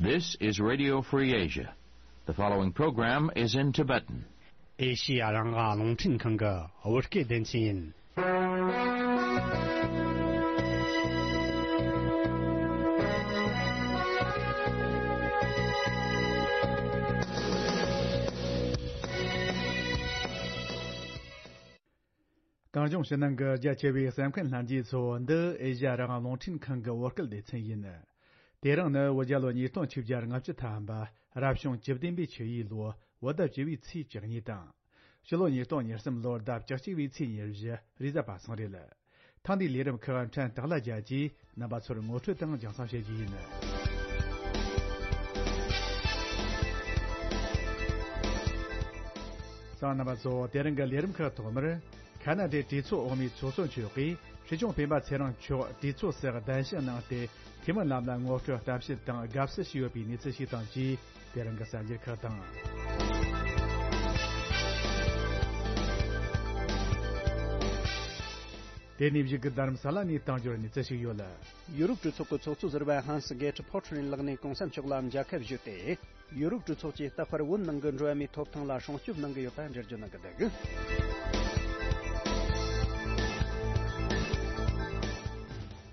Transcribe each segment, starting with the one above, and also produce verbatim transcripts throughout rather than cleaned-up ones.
This is Radio Free Asia. The following program is in Tibetan. ཨེ་ཤི་ཡ་རང་དབང་རླུང་འཕྲིན་ཁང་གི་བོད་སྐད་སྡེ་ཚན་ཡིན། གངས་ལྗོངས་ཕྱི་ནང་གི་རྒྱ་ཆེ་བའི་གསན་མཁན་ལྷན་རྒྱས་ཚོ། འདི་ཨེ་ཤ་ཡ་རང་དབང་རླུང་འཕྲིན་ཁང་གི་བོད་སྐད་སྡེ་ཚན་ཡིན། དེ་རིང་ནི་བོད་རྒྱལ་ལོ་ཉིས་སྟོང་ཆིག་བརྒྱ་ལྔ་བཅུ་ཐམ་པ། རབ་བྱུང་བཅུ་བདུན་པའི་ཆུ་ཡོས་ལོ། བོད་ཟླ་བཅུ་བའི་ཚེས་བཅུ་གཉིས་དང་། ཕྱི་ལོ་ཉིས་སྟོང་ཉེར་གསུམ་ལོར་ཟླ་བཅུ་གཅིག་པའི་ཚེས་ཉེར་བཞི། རེས་གཟའ་པ་སངས་རེད། ཐེངས་འདིའི་ལས་རིམ་ཁག་ཕྲན་སྟག་ལྷ་རྒྱལ་གྱིས་རྣམ་པ་ཚོར་ངོ་སྤྲོད་དང་རྒྱང་སྲིང་བྱེད་རྒྱུ་ཡིན། གསན་མཁན་རྣམ་པ་ཚོ། དེ་རིང་གི་ལས་རིམ་ཁག་ཐོག་མར། ཁ་ན་ཌའི་གྲོས་ཚོགས་འོག་མའི་ཚོགས་གཙོ་མཆོག་གིས་སྲིད་སྐྱོང་སྤེན་པ་ཚེ་རིང་མཆོག་གྲོས་ཚོགས་སུ་གདན་ཞུ་གནང་སྟེ། འཐུས་མི་རྣམས་ལ་ངོ་སྤྲོད་གཏམ་བཤད་དང་དགའ་བསུ་ཞུས་ཡོད་པའི་གནས་ཚུལ་ཞིག་དང་བཅས། དེ་རིང་གི་གསར་འགྱུར་ཁག་དང་། དེ་ནས་བཞུགས་སྒར་རྡ་རམ་ས་ལ་ནས་གཏམ་བརྗོད་གནས་ཚུལ་ཞིག་ཡོད། ཡུ་རོབ་གྲོས་ཚོགས་ཀྱི་ཚོགས་གཙོ་ཟུར་པ་ཧན་སི་གེ་ཊི་ཕོ་ཊ་རིན་ལགས་ནས་གོང་ས་མཆོག་ལ་མཇལ་ཁ་ཞུས་ཏེ། ཡུ་རོབ་གྲོས་ཚོགས་ཀྱིས་རྟག་པར་བོད་ནང་གི་འགྲོ་བ་མིའི་ཐོབ་ཐང་ལ་སྲུང་སྐྱོབ་གནང་གི་ཡོད་པ་འགྲེལ་བརྗོད་གནང་གི་འདུག།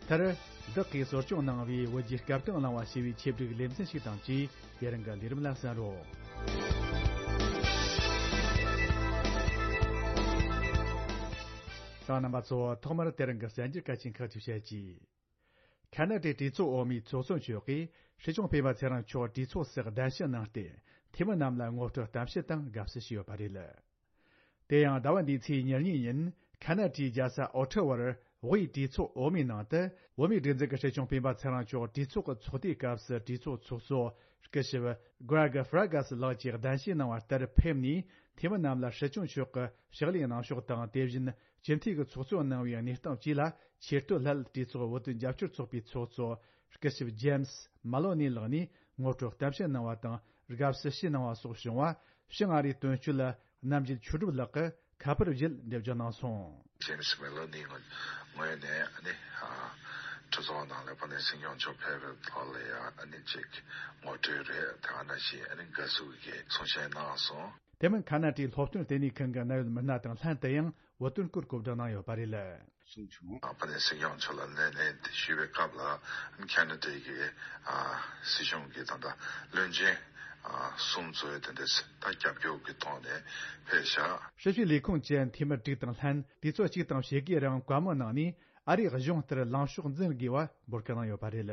མཐར། བདག་གིས་གསོ་སྐྱོང་གནང་བའི་བོད་ཀྱི་སྐབས་དང་བླངས་པ་ཞེས་པའི་ཆེད་སྒྲིག་ལེ་ཚན་ཞིག་དང་བཅས། དེ་རིང་གི་ལས་རིམ་ལ་གསན་རོགས། གསན་མཁན་རྣམ་པ་ཚོ། ཐོག་མར་དེ་རིང་གི་གསར་འགྱུར་གལ་ཆེན་ཁག་ཅིག་བཤད་ཀྱིས། ཁ་ན་ཌའི་གྲོས་ཚོགས་འོག་མའི་ཚོགས་གཙོ་མཆོག་གིས་སྲིད་སྐྱོང་སྤེན་པ་ཚེ་རིང་མཆོག་གྲོས་ཚོགས་སུ་གདན་ཞུ་གནང་སྟེ། འཐུས་མི་རྣམས་ལ་ངོ་སྤྲོད་གཏམ་བཤད་དང་དགའ་བསུ་ཞུས་ཡོད་པ་རེད། དེ་ཡང་ཟླ་བ་འདིའི་ཚེས་ཉེར་གཉིས་ཉིན། ཁ་ན་ཌའི་རྒྱལ་ས་ཨོ་ཊ་ཝར་དབུས་གྲོས་ཚོགས་འོག་མའི་ནང་དུ། བོད་མིའི་སྒྲིག་འཛུགས་ཀྱི་སྲིད་སྐྱོང་སྤེན་པ་ཚེ་རིང་མཆོག་གྲོས་ཚོགས་ཀྱི་ཚོགས་དུས་སྐབས་སུ་གྲོས་ཚོགས་ཚོགས་གཙོ་སྐུ་ཞབས་Greg Fergus ལགས་ཀྱིས་གདན་ཞུ་གནང་བ་ལྟར་ཕེབས་ནས། འཐུས་མི་རྣམས་ལ་སྲིད་སྐྱོང་མཆོག་གི་ཕྱག་ལས་གནང་ཕྱོགས་དང་། དེ་བཞིན་སྤྱི་འཐུས་ཀྱི་ཚོགས་གཙོ་གནང་བའི་གནས་སྟངས་བཅས་ལ་ཆེས་མཐོའི་སླད་གྲོས་ཚོགས་བོད་དོན་རྒྱབ་སྐྱོར་ཚོགས་པའི་ཚོགས་གཙོ་སྐུ་ཞབས་ཇེམ་སི་མ་ལོ་ནི་ལགས་ནས་ངོ་སྤྲོད་གཏམ་བཤད་གནང་བ་དང་། དགའ་བསུ་ཞུས་གནང་བ་སོགས་བྱུང་བ། ཕྱི་ང་རིའི་དོན་གཅོད་རྣམ་རྒྱལ་ཆོས་གྲུབ་ལགས་ཀྱིས་ཁ་པར་བརྒྱུད་འགྲེལ་བརྗོད་གནང་སོང་། ཇེམ་སི་མེ་ལོ་ནི་ངོས་ནས་ཨ་ནི་ཨ་གྲོས་ཚོགས་ནང་ལ་བོད་ནས་སྲིད་སྐྱོང་མཆོག་ཕེབས་པའི་ཐོག་ལ་ཡང་ཨ་ནི་ཅིག་ངོ་སྤྲོད་རེད། དེ་ག་ནང་བཞིན་ཨ་ནི་དགའ་བསུ་གི་གསུང་བཤད་གནང་སོང་། དེ་མིན་ཁ་ན་ཌའི་སློབ་སྟོན་ལྟེ་གནས་ཁང་གི་གནད་ཡོད་མི་སྣ་དང་ལྷན་དུ་ཡང་བོད་དོན་སྐོར་གོ་བསྡུར་གནང་ཡོད་པ་རེད། གསུངས་བྱུང་། ཨ་ཕ་ནས་སྲིད་སྐྱོང་མཆོག་ལ་ལན་ལན་དེ་ཞུས་པའི་སྐབས་ལ་ཁ་ན་ཌའི་གི་ཨ་སྲིད་གཞུང་གི་ད་ལྟ་བློན་ཆེན་ཨ་གསུམ་ཚོས་དེ་འདྲ་ད་རྒྱབ་སྐྱོར་གྱི་ཐོག་ནས་ཕེབས་ཤག། སྲིད་བྱུས་ལས་ཁུངས་ཀྱི་འཐུས་མི་དྲུག་དང་ལྷན་དུས་ཚོད་གཅིག་དང་ཕྱེད་ཀའི་རིང་བཀའ་མོལ་གནང་ནས། ཨ་རིའི་གཞུང་ལྟར་ལངས་ཕྱོགས་འཛིན་དགོས་པ་འབོད་སྐུལ་གནང་ཡོད་པ་རེད།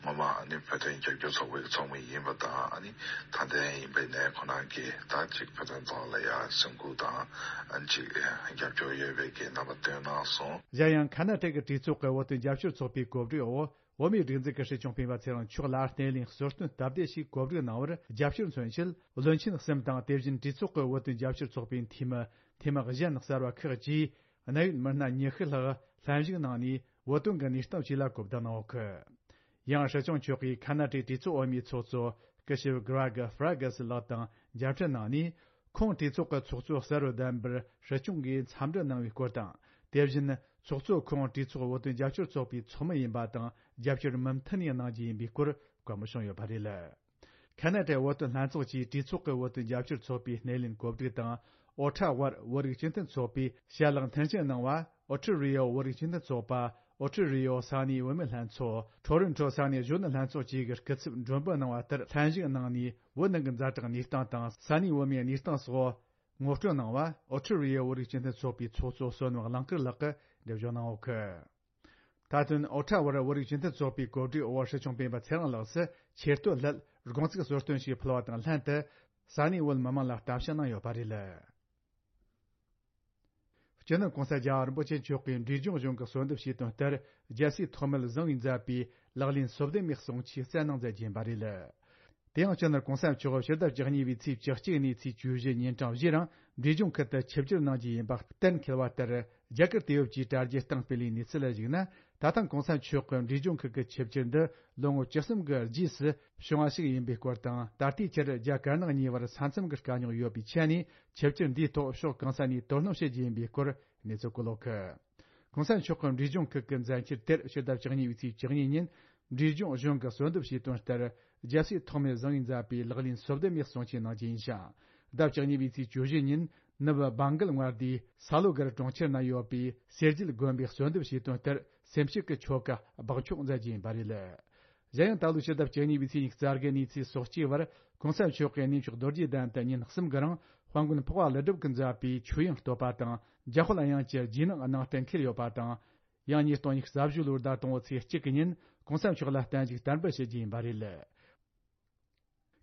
ངོ་མ་ཨ་ནི་བོད་དོན་རྒྱབ་སྐྱོར་ཚོགས་པའི་ཚོགས་མི་ཡིན་པ་དང་། ཨ་ནི་ད་ལྟ་ཡིན་པའི་ནས་ཁོ་རང་གིས་ད་ཅིག་བོད་དོན་ཐོག་ལ་ཡ་སེམས་ཁུར་དང་ཨ་ནི་ཅིག་རྒྱབ་སྐྱོར་ཡོད་པའི་གི་རྣམ་པ་སྟོན་གནང་སོང་། གཞན་ཡང་ཁ་ན་ཌ་གི་གྲོས་ཚོགས་ཀྱི་བོད་དོན་རྒྱབ་སྐྱོར་ཚོགས་པའི་གོ་སྒྲིག་འོག། བོད་མིའི་སྒྲིག་འཛུགས་ཀྱི་སྲིད་སྐྱོང་སྤེན་པ་ཚེ་རིང་མཆོག་ལ་སྣེ་ལེན་གསོལ་སྟོན་སྟབས་བདེ་ཞིག་གོ་སྒྲིག་གནང་བར་རྒྱབ་སྐྱོར་མཚོན་ཆེད། བློན་ཆེན་གསུམ་དང་། དེ་བཞིན་གྲོས་ཚོགས་ཀྱི་བོད་དོན་རྒྱབ་སྐྱོར་ཚོགས་པའི་འཐུས་མི། འཐུས་མི་གཞན་གསར་བ་ཁག་བཅས། གནད་ཡོད་མི་སྣ་ཉི་ཤུ་ལྷག་ལྷན་ཞུགས་གནང་ནས། བོད་དོན་གྱི་གནས་སྟངས་བཅས་ལ་གོ་བསྡུར་གནང་ཡོད་གི། ཡང་སྲིད་སྐྱོང་མཆོག་གིས་ཁ་ན་ཌའི་གྲོས་ཚོགས་འོག་མའི་ཚོགས་གཙོ་སྐུ་ཞབས་Greg Fergus ལགས་དང་མཇལ་འཕྲད་གནང་ནས། ཁོང་གྲོས་ཚོགས་ཀྱི་ཚོགས་གཙོ་གསར་པར་གདམ་པར་སྲིད་སྐྱོང་གིས་འཚམས་འདྲི་གནང་བའི་སྐོར་དང་། དེ་བཞིན་ཚོགས་གཙོ་ཁོང་གྲོས་ཚོགས་བོད་དོན་རྒྱབ་སྐྱོར་ཚོགས་པའི་ཚོགས་མི་ཡིན་པ་དང་། རྒྱབ་སྐྱོར་མུ་མཐུད་ནས་གནང་རྒྱུ་ཡིན་པའི་སྐོར་བཀའ་མོལ་བྱུང་ཡོད་པ་རེད། ཁ་ན་ཌའི་བོད་དོན་ལྷན་ཚོགས་ཀྱིས་གྲོས་ཚོགས་ཀྱི་བོད་དོན་རྒྱབ་སྐྱོར་ཚོགས་པའི་སྣེ་ལེན་གོ་སྒྲིག་དང་། ཨོ་ཁྲ་ཝར་བོད་རིགས་སྤྱི་མཐུན་ཚོགས་པས་ཞལ་ལག་མཐུན་རྐྱེན་གནང་བ། ཨོ་ཁྲི་རི་ཡོ་བོད་རིགས་སྤྱི་མཐུན་ཚོགས་པ། ཨོ་ཁྲི་རི་ཡོ་ས་གནས་བུད་མེད་ལྷན་ཚོགས། ཁྲོ་རོན་ཁྲོ་ས་གནས་གཞོན་ནུ་ལྷན་ཚོགས་བཅས་ཀྱི་སྐུ་ཚབ་མགྲོན་འབོད་གནང་བ་ལྟར། ལྷན་ཞུགས་གནང་ནས། བོད་ནང་གི་ཛ་དྲག་གནས་སྟངས་དང་། ས་གནས་བོད་མིའི་གནས་སྟངས་སོགས་ངོ་སྤྲོད་གནང་བ། ཨོ་ཁྲི་རི་ཡོ་བོད་རིགས་སྤྱི་མཐུན་ཚོགས་པའི་ཚོགས་གཙོ་བསོད་ནམས་གླིང་དཀར་ལགས་ཀྱིས་འགྲེལ་བརྗོད་གནང་ཡོད་གི། མཐའ་དོན། ཨོ་ཁྲ་ཝར་བོད་རིགས་སྤྱི་མཐུན་ཚོགས་པའི་གོ་སྒྲིག་འོག་སྲིད་སྐྱོང་སྤེན་པ་ཚེ་རིང་ལགས་སུ་ཆེ་བསྟོད་སླད་དགོངས་ཚིག་གསོལ་སྟོན་ཞིག་ཕུལ་བ་དང་ལྷན་དུ། ས་གནས་བོད་མི་མང་ལ་གཏམ་བཤད་གནང་ཡོད་པ་རེད། སྤྱི་ནོར་༸གོང་ས་༸རྒྱལ་བ་རིན་པོ་ཆེ་མཆོག་གིས་འབྲས་ལྗོངས་གཞུང་གི་གསོལ་འདེབས་བྱས་དོན་ལྟར། རྒྱལ་སྲས་ཐོགས་མེད་བཟང་པོས་མཛད་པའི་ལག་ལེན་སོ་བདུན་མའི་གསུང་ཆོས་སྩལ་གནང་མཛད་ཀྱིན་པ་རེད། དེ་ཡང་སྤྱི་ནོར་༸གོང་ས་མཆོག་ཕྱི་ཟླ་བཅུ་གཉིས་པའི་ཚེས་བཅུ་གཅིག་ནས་ཚེས་བཅུ་བཞི་ཉིན་གྲངས་བཞིའི་རིང་འབྲས་ལྗོངས་ཁུལ་དུ་ཆིབས་བསྒྱུར་གནང་རྒྱུ་ཡིན་པ་གཏན་འཁེལ་བ་ལྟར། རྒྱ་གར་དུས་བབ་ཀྱིས་དྲ་རྒྱའི་སྟེང་སྤེལ་བའི་གནས་ཚུལ་ལ་གཞིགས་ན། ད་ཐེངས་༸གོང་ས་མཆོག་གི་འབྲས་ལྗོངས་ཁུལ་གྱི་ཆིབས་བསྒྱུར་འདི་ལོ་ངོ་བཅུ་གསུམ་གྱི་རྗེས་སུ་བྱུང་བ་ཞིག་ཡིན་པའི་སྐོར་དང་། ད་ལྟའི་ཆར་རྒྱ་དཀར་ནག་གཉིས་བར་ས་མཚམས་ཀྱི་དཀའ་རྙོག་ཡོད་པའི་ཆ་ནས། ཆིབས་བསྒྱུར་འདིའི་ཐོག་ཕྱོགས་གང་ས་ནས་དོ་སྣང་བྱེད་རྒྱུ་ཡིན་པའི་སྐོར་གནས་ཚུལ་བཀོད་ཡོད་གི། ༸གོང་ས་མཆོག་གི་འབྲས་ལྗོངས་ཁུལ་གྱི་མཛད་འཆར་དེར་ཕྱི་ཟླ་བཅུ་གཉིས་པའི་ཚེས་བཅུ་གཉིས་ཉིན་འབྲས་ལྗོངས་གཞུང་གིས་གསོལ་འདེབས་བྱས་དོན་ལྟར། རྒྱལ་སྲས་ཐོགས་མེད་བཟང་བོས་མཛད་པའི་ལག་ལེན་སོ་བདུན་མའི་གསུང་ཆོས་གནང་རྒྱུ་ཡིན་ཞིང་། ཟླ་བཅུ་གཉིས་པའི་ཚེས་བཅུ་བཞི་ཉིན་ནུབ་བྷང་གལ་མངའ་སྡེའི་ས་ལོ་གར་གྲོང་ཁྱེར་ན་ཡོད་པའི་གསེར་རྒྱལ་དགོན་པའི་གསོལ་འདེབས་བྱས་དོན་ལྟར་སེམས་བསྐྱེད་ཀྱི་ཆོ་ག་འབག་འཁྱོག་མཛད་རྒྱུ་ཡིན་པ་རེད། གཞན་ཡང་ད་ལོའི་ཕྱི་ཟླ་བཅུ་གཉིས་པའི་ཚེས་ཉི་ཤུ་རྩ་དགུ་ནས་ཚེས་སོ་གཅིག་བར་གོང་ས་མཆོག་གི་གནས་མཆོག་རྡོ་རྗེ་གདན་དུ་ཉིན་གསུམ་གྱི་རིང་དཔལ་མགོན་འཕགས་པ་ཀླུ་སྒྲུབ་ཀྱིས་མཛད་པའི་ཆོས་དབྱིངས་བསྟོད་པ་དང་རྒྱ་ཧོ་ལ་དབྱངས་ཀྱི་རྗེས་གནང་གནང་གཏན་འཁེལ་ཡོད་པ་དང་། ཡང་ཉིས་སྟོང་ཉི་ཤུ་རྩ་བཞི་ལོའི་ཟླ་དང་པོའི་ཚེས་གཅིག་གི་ཉིན་གོང་ས་མཆོག་ལ་གཏན་བཞུགས་བསྟར་འབུལ་བྱེད་རྒྱུ་ཡིན་པ་རེད།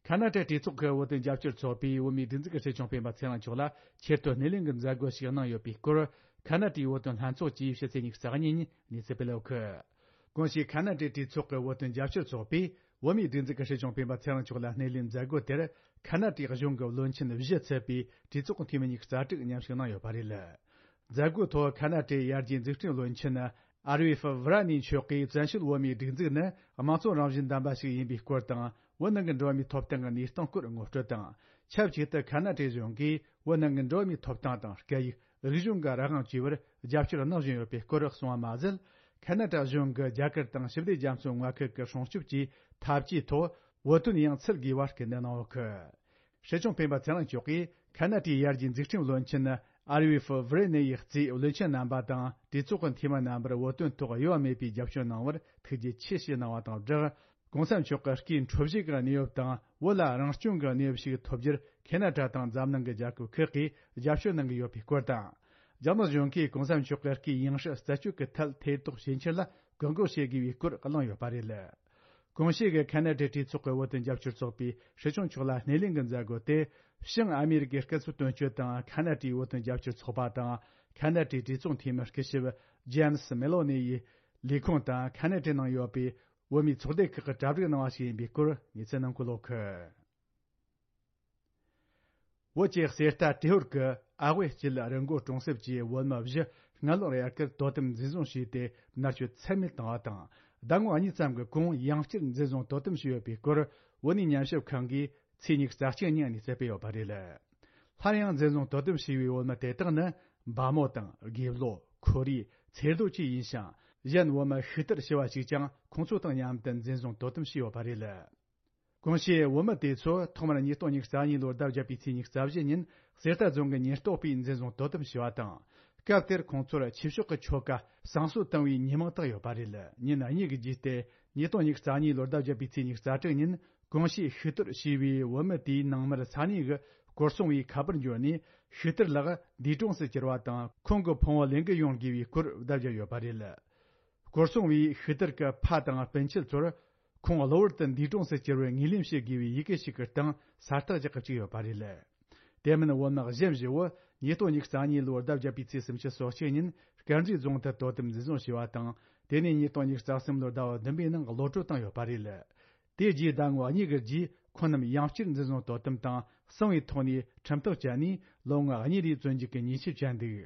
ཁ་ན་ཏའི་གྲོས་ཚོགས་ཀྱི་བོད་དོན་རྒྱབ་སྐྱོར་ཚོགས་པས་བོད་མིའི་སྒྲིག་འཛུགས་ཀྱི་སྲིད་སྐྱོང་སྤེན་པ་ཚེ་རིང་མཆོག་ལ་ཆེད་དུ་སྣེ་ལེན་གྱི་མཛད་སྒོ་ཞིག་གནང་ཡོད་པའི་སྐོར། ཁ་ན་ཏའི་བོད་དོན་ལྷན་ཚོགས་ཀྱིས་ཕྱི་ཚེས་ཉི་ཤུ་རྩ་གཉིས་ཉིན་གནས་ཚུལ་སྤེལ་ཡོད་གི། གོང་ཞུས་ཁ་ན་ཏའི་གྲོས་ཚོགས་ཀྱི་བོད་དོན་རྒྱབ་སྐྱོར་ཚོགས་པས་བོད་མིའི་སྒྲིག་འཛུགས་ཀྱི་སྲིད་སྐྱོང་སྤེན་པ་ཚེ་རིང་མཆོག་ལ་སྣེ་ལེན་མཛད་སྒོ་དེར་ཁ་ན་ཏའི་གཞུང་གི་བློན་ཆེན་བཞི་ཚུད་པའི་གྲོས་ཚོགས་འཐུས་མི་ཉི་ཤུ་རྩ་དྲུག་མཉམ་ཞུགས་གནང་ཡོད་པ་རེད། མཛད་སྒོའི་ཐོག་ཁ་ན་ཏའི་ཡར་རྒྱས་འཛུགས་སྐྲུན་བློན་ཆེན་ཨར་ཝི་ཧྥི་ཝི་ར་ནི་མཆོག་གིས་བཙན་བྱོལ་བོད་མིའི་སྒྲིག་འཛུགས་ནི་དམངས་གཙོ་རང་བཞིན་ལྡན་པ་ཞིག་ཡིན་པའི་སྐོར་དང་། བོད་ནང་གི་འགྲོ་བ་མིའི་ཐོབ་ཐང་གི་གནས་སྟངས་སྐོར་ངོ་སྤྲོད་དང་། ཆབས་ཅིག་ཏུ་ཁ་ན་ཏའི་གཞུང་གིས་བོད་ནང་གི་འགྲོ་བ་མིའི་ཐོབ་ཐང་དང་སྐད་ཡིག་རིག་གཞུང་གི་རང་དབང་བཅས་པར་རྒྱབ་སྐྱོར་གནང་བཞིན་ཡོད་པའི་སྐོར་གསུངས་པ་མ་ཟད། ཁ་ན་ཏ་གཞུང་གིས་རྒྱ་གར་དང་ཞི་བདེ་རྒྱ་མཚོའི་མངའ་ཁུལ་གྱི་སྲུང་སྐྱོབ་ཀྱི་འཐབ་ཇུས་ཐོག་བོད་དོན་ཡང་ཚུད་དགོས་པར་སྐུལ་འདེད་གནང་ཡོད་གི། སྲིད་སྐྱོང་སྤེན་པ་ཚེ་རིང་མཆོག་གིས་ཁ་ན་ཏའི་ཡར་རྒྱས་འཛུགས་སྐྲུན་བློན་ཆེན་ཨར་ཝི་ཧྥི་ཝི་རེ་ནེ་ཡི་གཙོས་བློན་ཆེན་རྣམ་པ་དང་གྲོས་ཚོགས་ཀྱི་འཐུས་མི་རྣམ་པར་བོད་དོན་ཐོག་གཡོ་བ་མེད་པའི་རྒྱབ་སྐྱོར་གནང་བར་ཐུགས་རྗེ་ཆེ་ཞེས་གནང་བ་དང་སྦྲགས། གོང་ས་མཆོག་གི་སྐུའི་འཕྲོད་བཞེས་ཀྱི་གནས་བབ་དང་བོད་ལ་རང་སྐྱོང་གི་གནས་བབ་ཞིག་ཐོབ་རྒྱུར་ཁེ་ན་ཏྲ་དང་འཛམ་གླིང་གི་རྒྱལ་ཁབ་ཁག་གིས་རྒྱབ་སྐྱོར་གནང་གི་ཡོད་པའི་སྐོར་དང་། རྒྱ་ནག་གཞུང་གིས་གོང་ས་མཆོག་གི་སྐུའི་ཡང་སྲིད་རྩད་གཅོད་ཀྱི་ཐད་ཐེ་གཏོགས་བྱེད་འཆར་ལ་བཀག་འགོག་བྱེད་དགོས་པའི་སྐོར་གླེང་ཡོད་པ་རེད། གོང་ཞུས་ཀྱི་ཁ་ན་ཏའི་གྲོས་ཚོགས་ཀྱི་བོད་དོན་རྒྱབ་སྐྱོར་ཚོགས་པས་སྲིད་སྐྱོང་མཆོག་ལ་སྣེ་ལེན་གྱི་མཛད་སྒོ་དེ། བྱང་ཨ་མེ་རི་ཀའི་སྐུ་ཚབ་དོན་གཅོད་དང་ཁ་ན་ཏའི་བོད་དོན་རྒྱབ་སྐྱོར་ཚོགས་པ་དང་ཁ་ན་ཏའི་གྲོས་ཚོགས་འཐུས་མི་སྐུ་ཞབས་ཇེམ་སི་མེ་ལོ་ནི་ཡི་ལས་ཁུངས་དང་ཁ་ན་ཏའི་ནང་ཡོད་པའི་བོད་མིའི་ཚོགས་སྡེ་ཁག་གིས་གྲ་སྒྲིག་གནང་བ་ཞིག་ཡིན་པའི་སྐོར་གནས་ཚུལ་ནང་འཁོད་ཡོད་གི། བོད་ཀྱི་གསེར་རྟ་ཏྲེ་ཧོར་གྱི་ཨ་དབེ་སྐྱིད་རི་མགོ་གྲོང་གསེབ་ཀྱི་བོད་མི་བཞི་སྔ་ལོ་རེ་ཁར་དོ་དམ་འཛིན་བཟུང་བྱས་ཏེ་མནར་གཅོད་ཚད་མེད་བཏང་བ་དང་། ཟླ་ངོ་གཉིས་ཙམ་གྱི་གོང་ཡང་བསྐྱར་འཛིན་བཟུང་དོ་དམ་བྱས་ཡོད་པའི་སྐོར་བོད་གནས་ཉམས་ཞིབ་ཁང་གིས་ཚེས་ཉི་ཤུ་རྩ་གཅིག་ཉིན་གནས་ཚུལ་སྤེལ་ཡོད་པ་རེད། སླར་ཡང་འཛིན་བཟུང་དོ་དམ་བྱས་པའི་བོད་མི་དེ་དག་ནི་འབའ་མོ་དང་དགེ་བློ། ཁོར་ཡུག་ཚེ་རྡོ་བཅས་ཡིན་ཞིང་། གཞན་བོད་མི་ཤི་དར་ཞུ་བ་ཞིག་ཀྱང་ཁོང་ཚོ་དང་མཉམ་དུ་འཛིན་བཟུང་དོ་དམ་བྱས་ཡོད་པ་རེད། གོང་ཞུས་བོད་མི་དེ་ཚོ་ཐོག་མར་ཉིས་སྟོང་ཉི་ཤུ་རྩ་གཉིས་ལོར་ཟླ་བརྒྱད་པའི་ཚེས་ཉི་ཤུ་རྩ་བཞི་ཉིན་གསེར་རྟ་རྫོང་གི་ཉེན་རྟོག་པས་འཛིན་བཟུང་དོ་དམ་བྱས་པ་དང་། སྐབས་དེར་ཁོང་ཚོར་ཆོས་ཕྱོགས་ཀྱི་ཆོ་ག་བསང་གསོལ་བཏང་བའི་ཉེས་དམིགས་བཏགས་ཡོད་པ་རེད། ཉིན་གཉིས་ཀྱི་རྗེས་ཏེ་ཉིས་སྟོང་ཉི་ཤུ་རྩ་གཉིས་ལོར་ཟླ་བརྒྱད་པའི་ཚེས་ཉི་ཤུ་རྩ་དྲུག་ཉིན་གོང་ཞུས་ཤི་གཏོར་བྱས་པའི་བོད་མི་དེའི་ནང་མིར་ས་གནས་ཀྱི་སྐོར་སྲུང་བའི་ཁ་པར་འབྱོར་ནས་ཤི་གཏོར་ལགས་འདས་གྲོངས་སུ་གྱུར་བ་དང་ཁོང་གི་ཕུང་བོ་ལེན་གི་ཡོང་དགོས་པའི་སྐོར་བརྡ་བརྒྱབ་ཡོད་པ་རེད། སྐོར་སྲུང་བས་ཤི་གཏོར་གྱི་ཕ་དང་སྤུན་མཆེད་ཚོར་ཁོང་གློ་བུར་དུ་འདས་གྲོངས་སུ་གྱུར་བའི་ངོས་ལེན་བྱེད་དགོས་པའི་ཡི་གེ་ཞིག་གི་སྟེང་ས་རྟགས་ཀྱི་བཅུག་ཡོད་པ་རེད། དེ་མིན་བོད་མི་གཞན་བཞི་བོ་ཉིས་སྟོང་ཉི་ཤུ་རྩ་གཉིས་ལོར་ཟླ་བརྒྱད་པའི་ཚེས་སུམ་ཅུ་སོ་གཅིག་ཉིན་དཀར་མཛེས་རྫོང་དུ་དོ་དམ་འཛིན་བཟུང་བྱས་པ་དང་། དེ་ནས་ཉིས་སྟོང་ཉི་ཤུ་རྩ་གསུམ་ལོར་ཟླ་བ་བདུན་པའི་ནང་གློད་བཀྲོལ་བཏང་ཡོད་པ་རེད། དེ་རྗེས་ཟླ་ངོ་གཉིས་ཀྱི་རྗེས་ཁོང་རྣམས་ཡང་བསྐྱར་འཛིན་བཟུང་དོ་དམ་དང་གསང་བའི་ཐོག་ནས་ཁྲིམས་ཐག་བཅད་ནས་ལོ་ངོ་གཉིས་རེའི་བཙོན་འཇུག་གི་ཉེས་ཆད་བཅད་འདུག་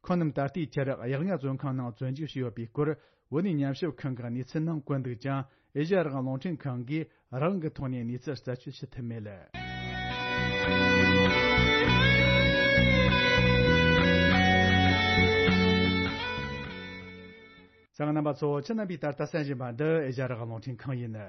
ཁོང་རྣམས་ད་ལྟའི་ཆར་གཡག་རྔ་བཙོན་ཁང་ནང་བཙོན་འཇུག་བྱས་ཡོད་པའི་སྐོར་བོད་གནས་ཉམས་ཞིབ་ཁང་གི་གནས་ཚུལ་ནང་བཀོད་འདུག་ཀྱང་། ཨེ་ཤ་ཡ་རང་དབང་རླུང་འཕྲིན་ཁང་གིས་རང་གི་ཐོག་ནས་གནས་ཚུལ་རྩད་གཅོད་བྱེད་ཐུབ་མེད། གསན་མཁན་རྣམ་པ་ཚོ། ཁྱེད་རྣམ་པས་ད་ལྟ་གསན་བཞིན་པ་འདི་ཨེ་ཤ་ཡ་རང་དབང་རླུང་འཕྲིན་ཁང་ཡིན།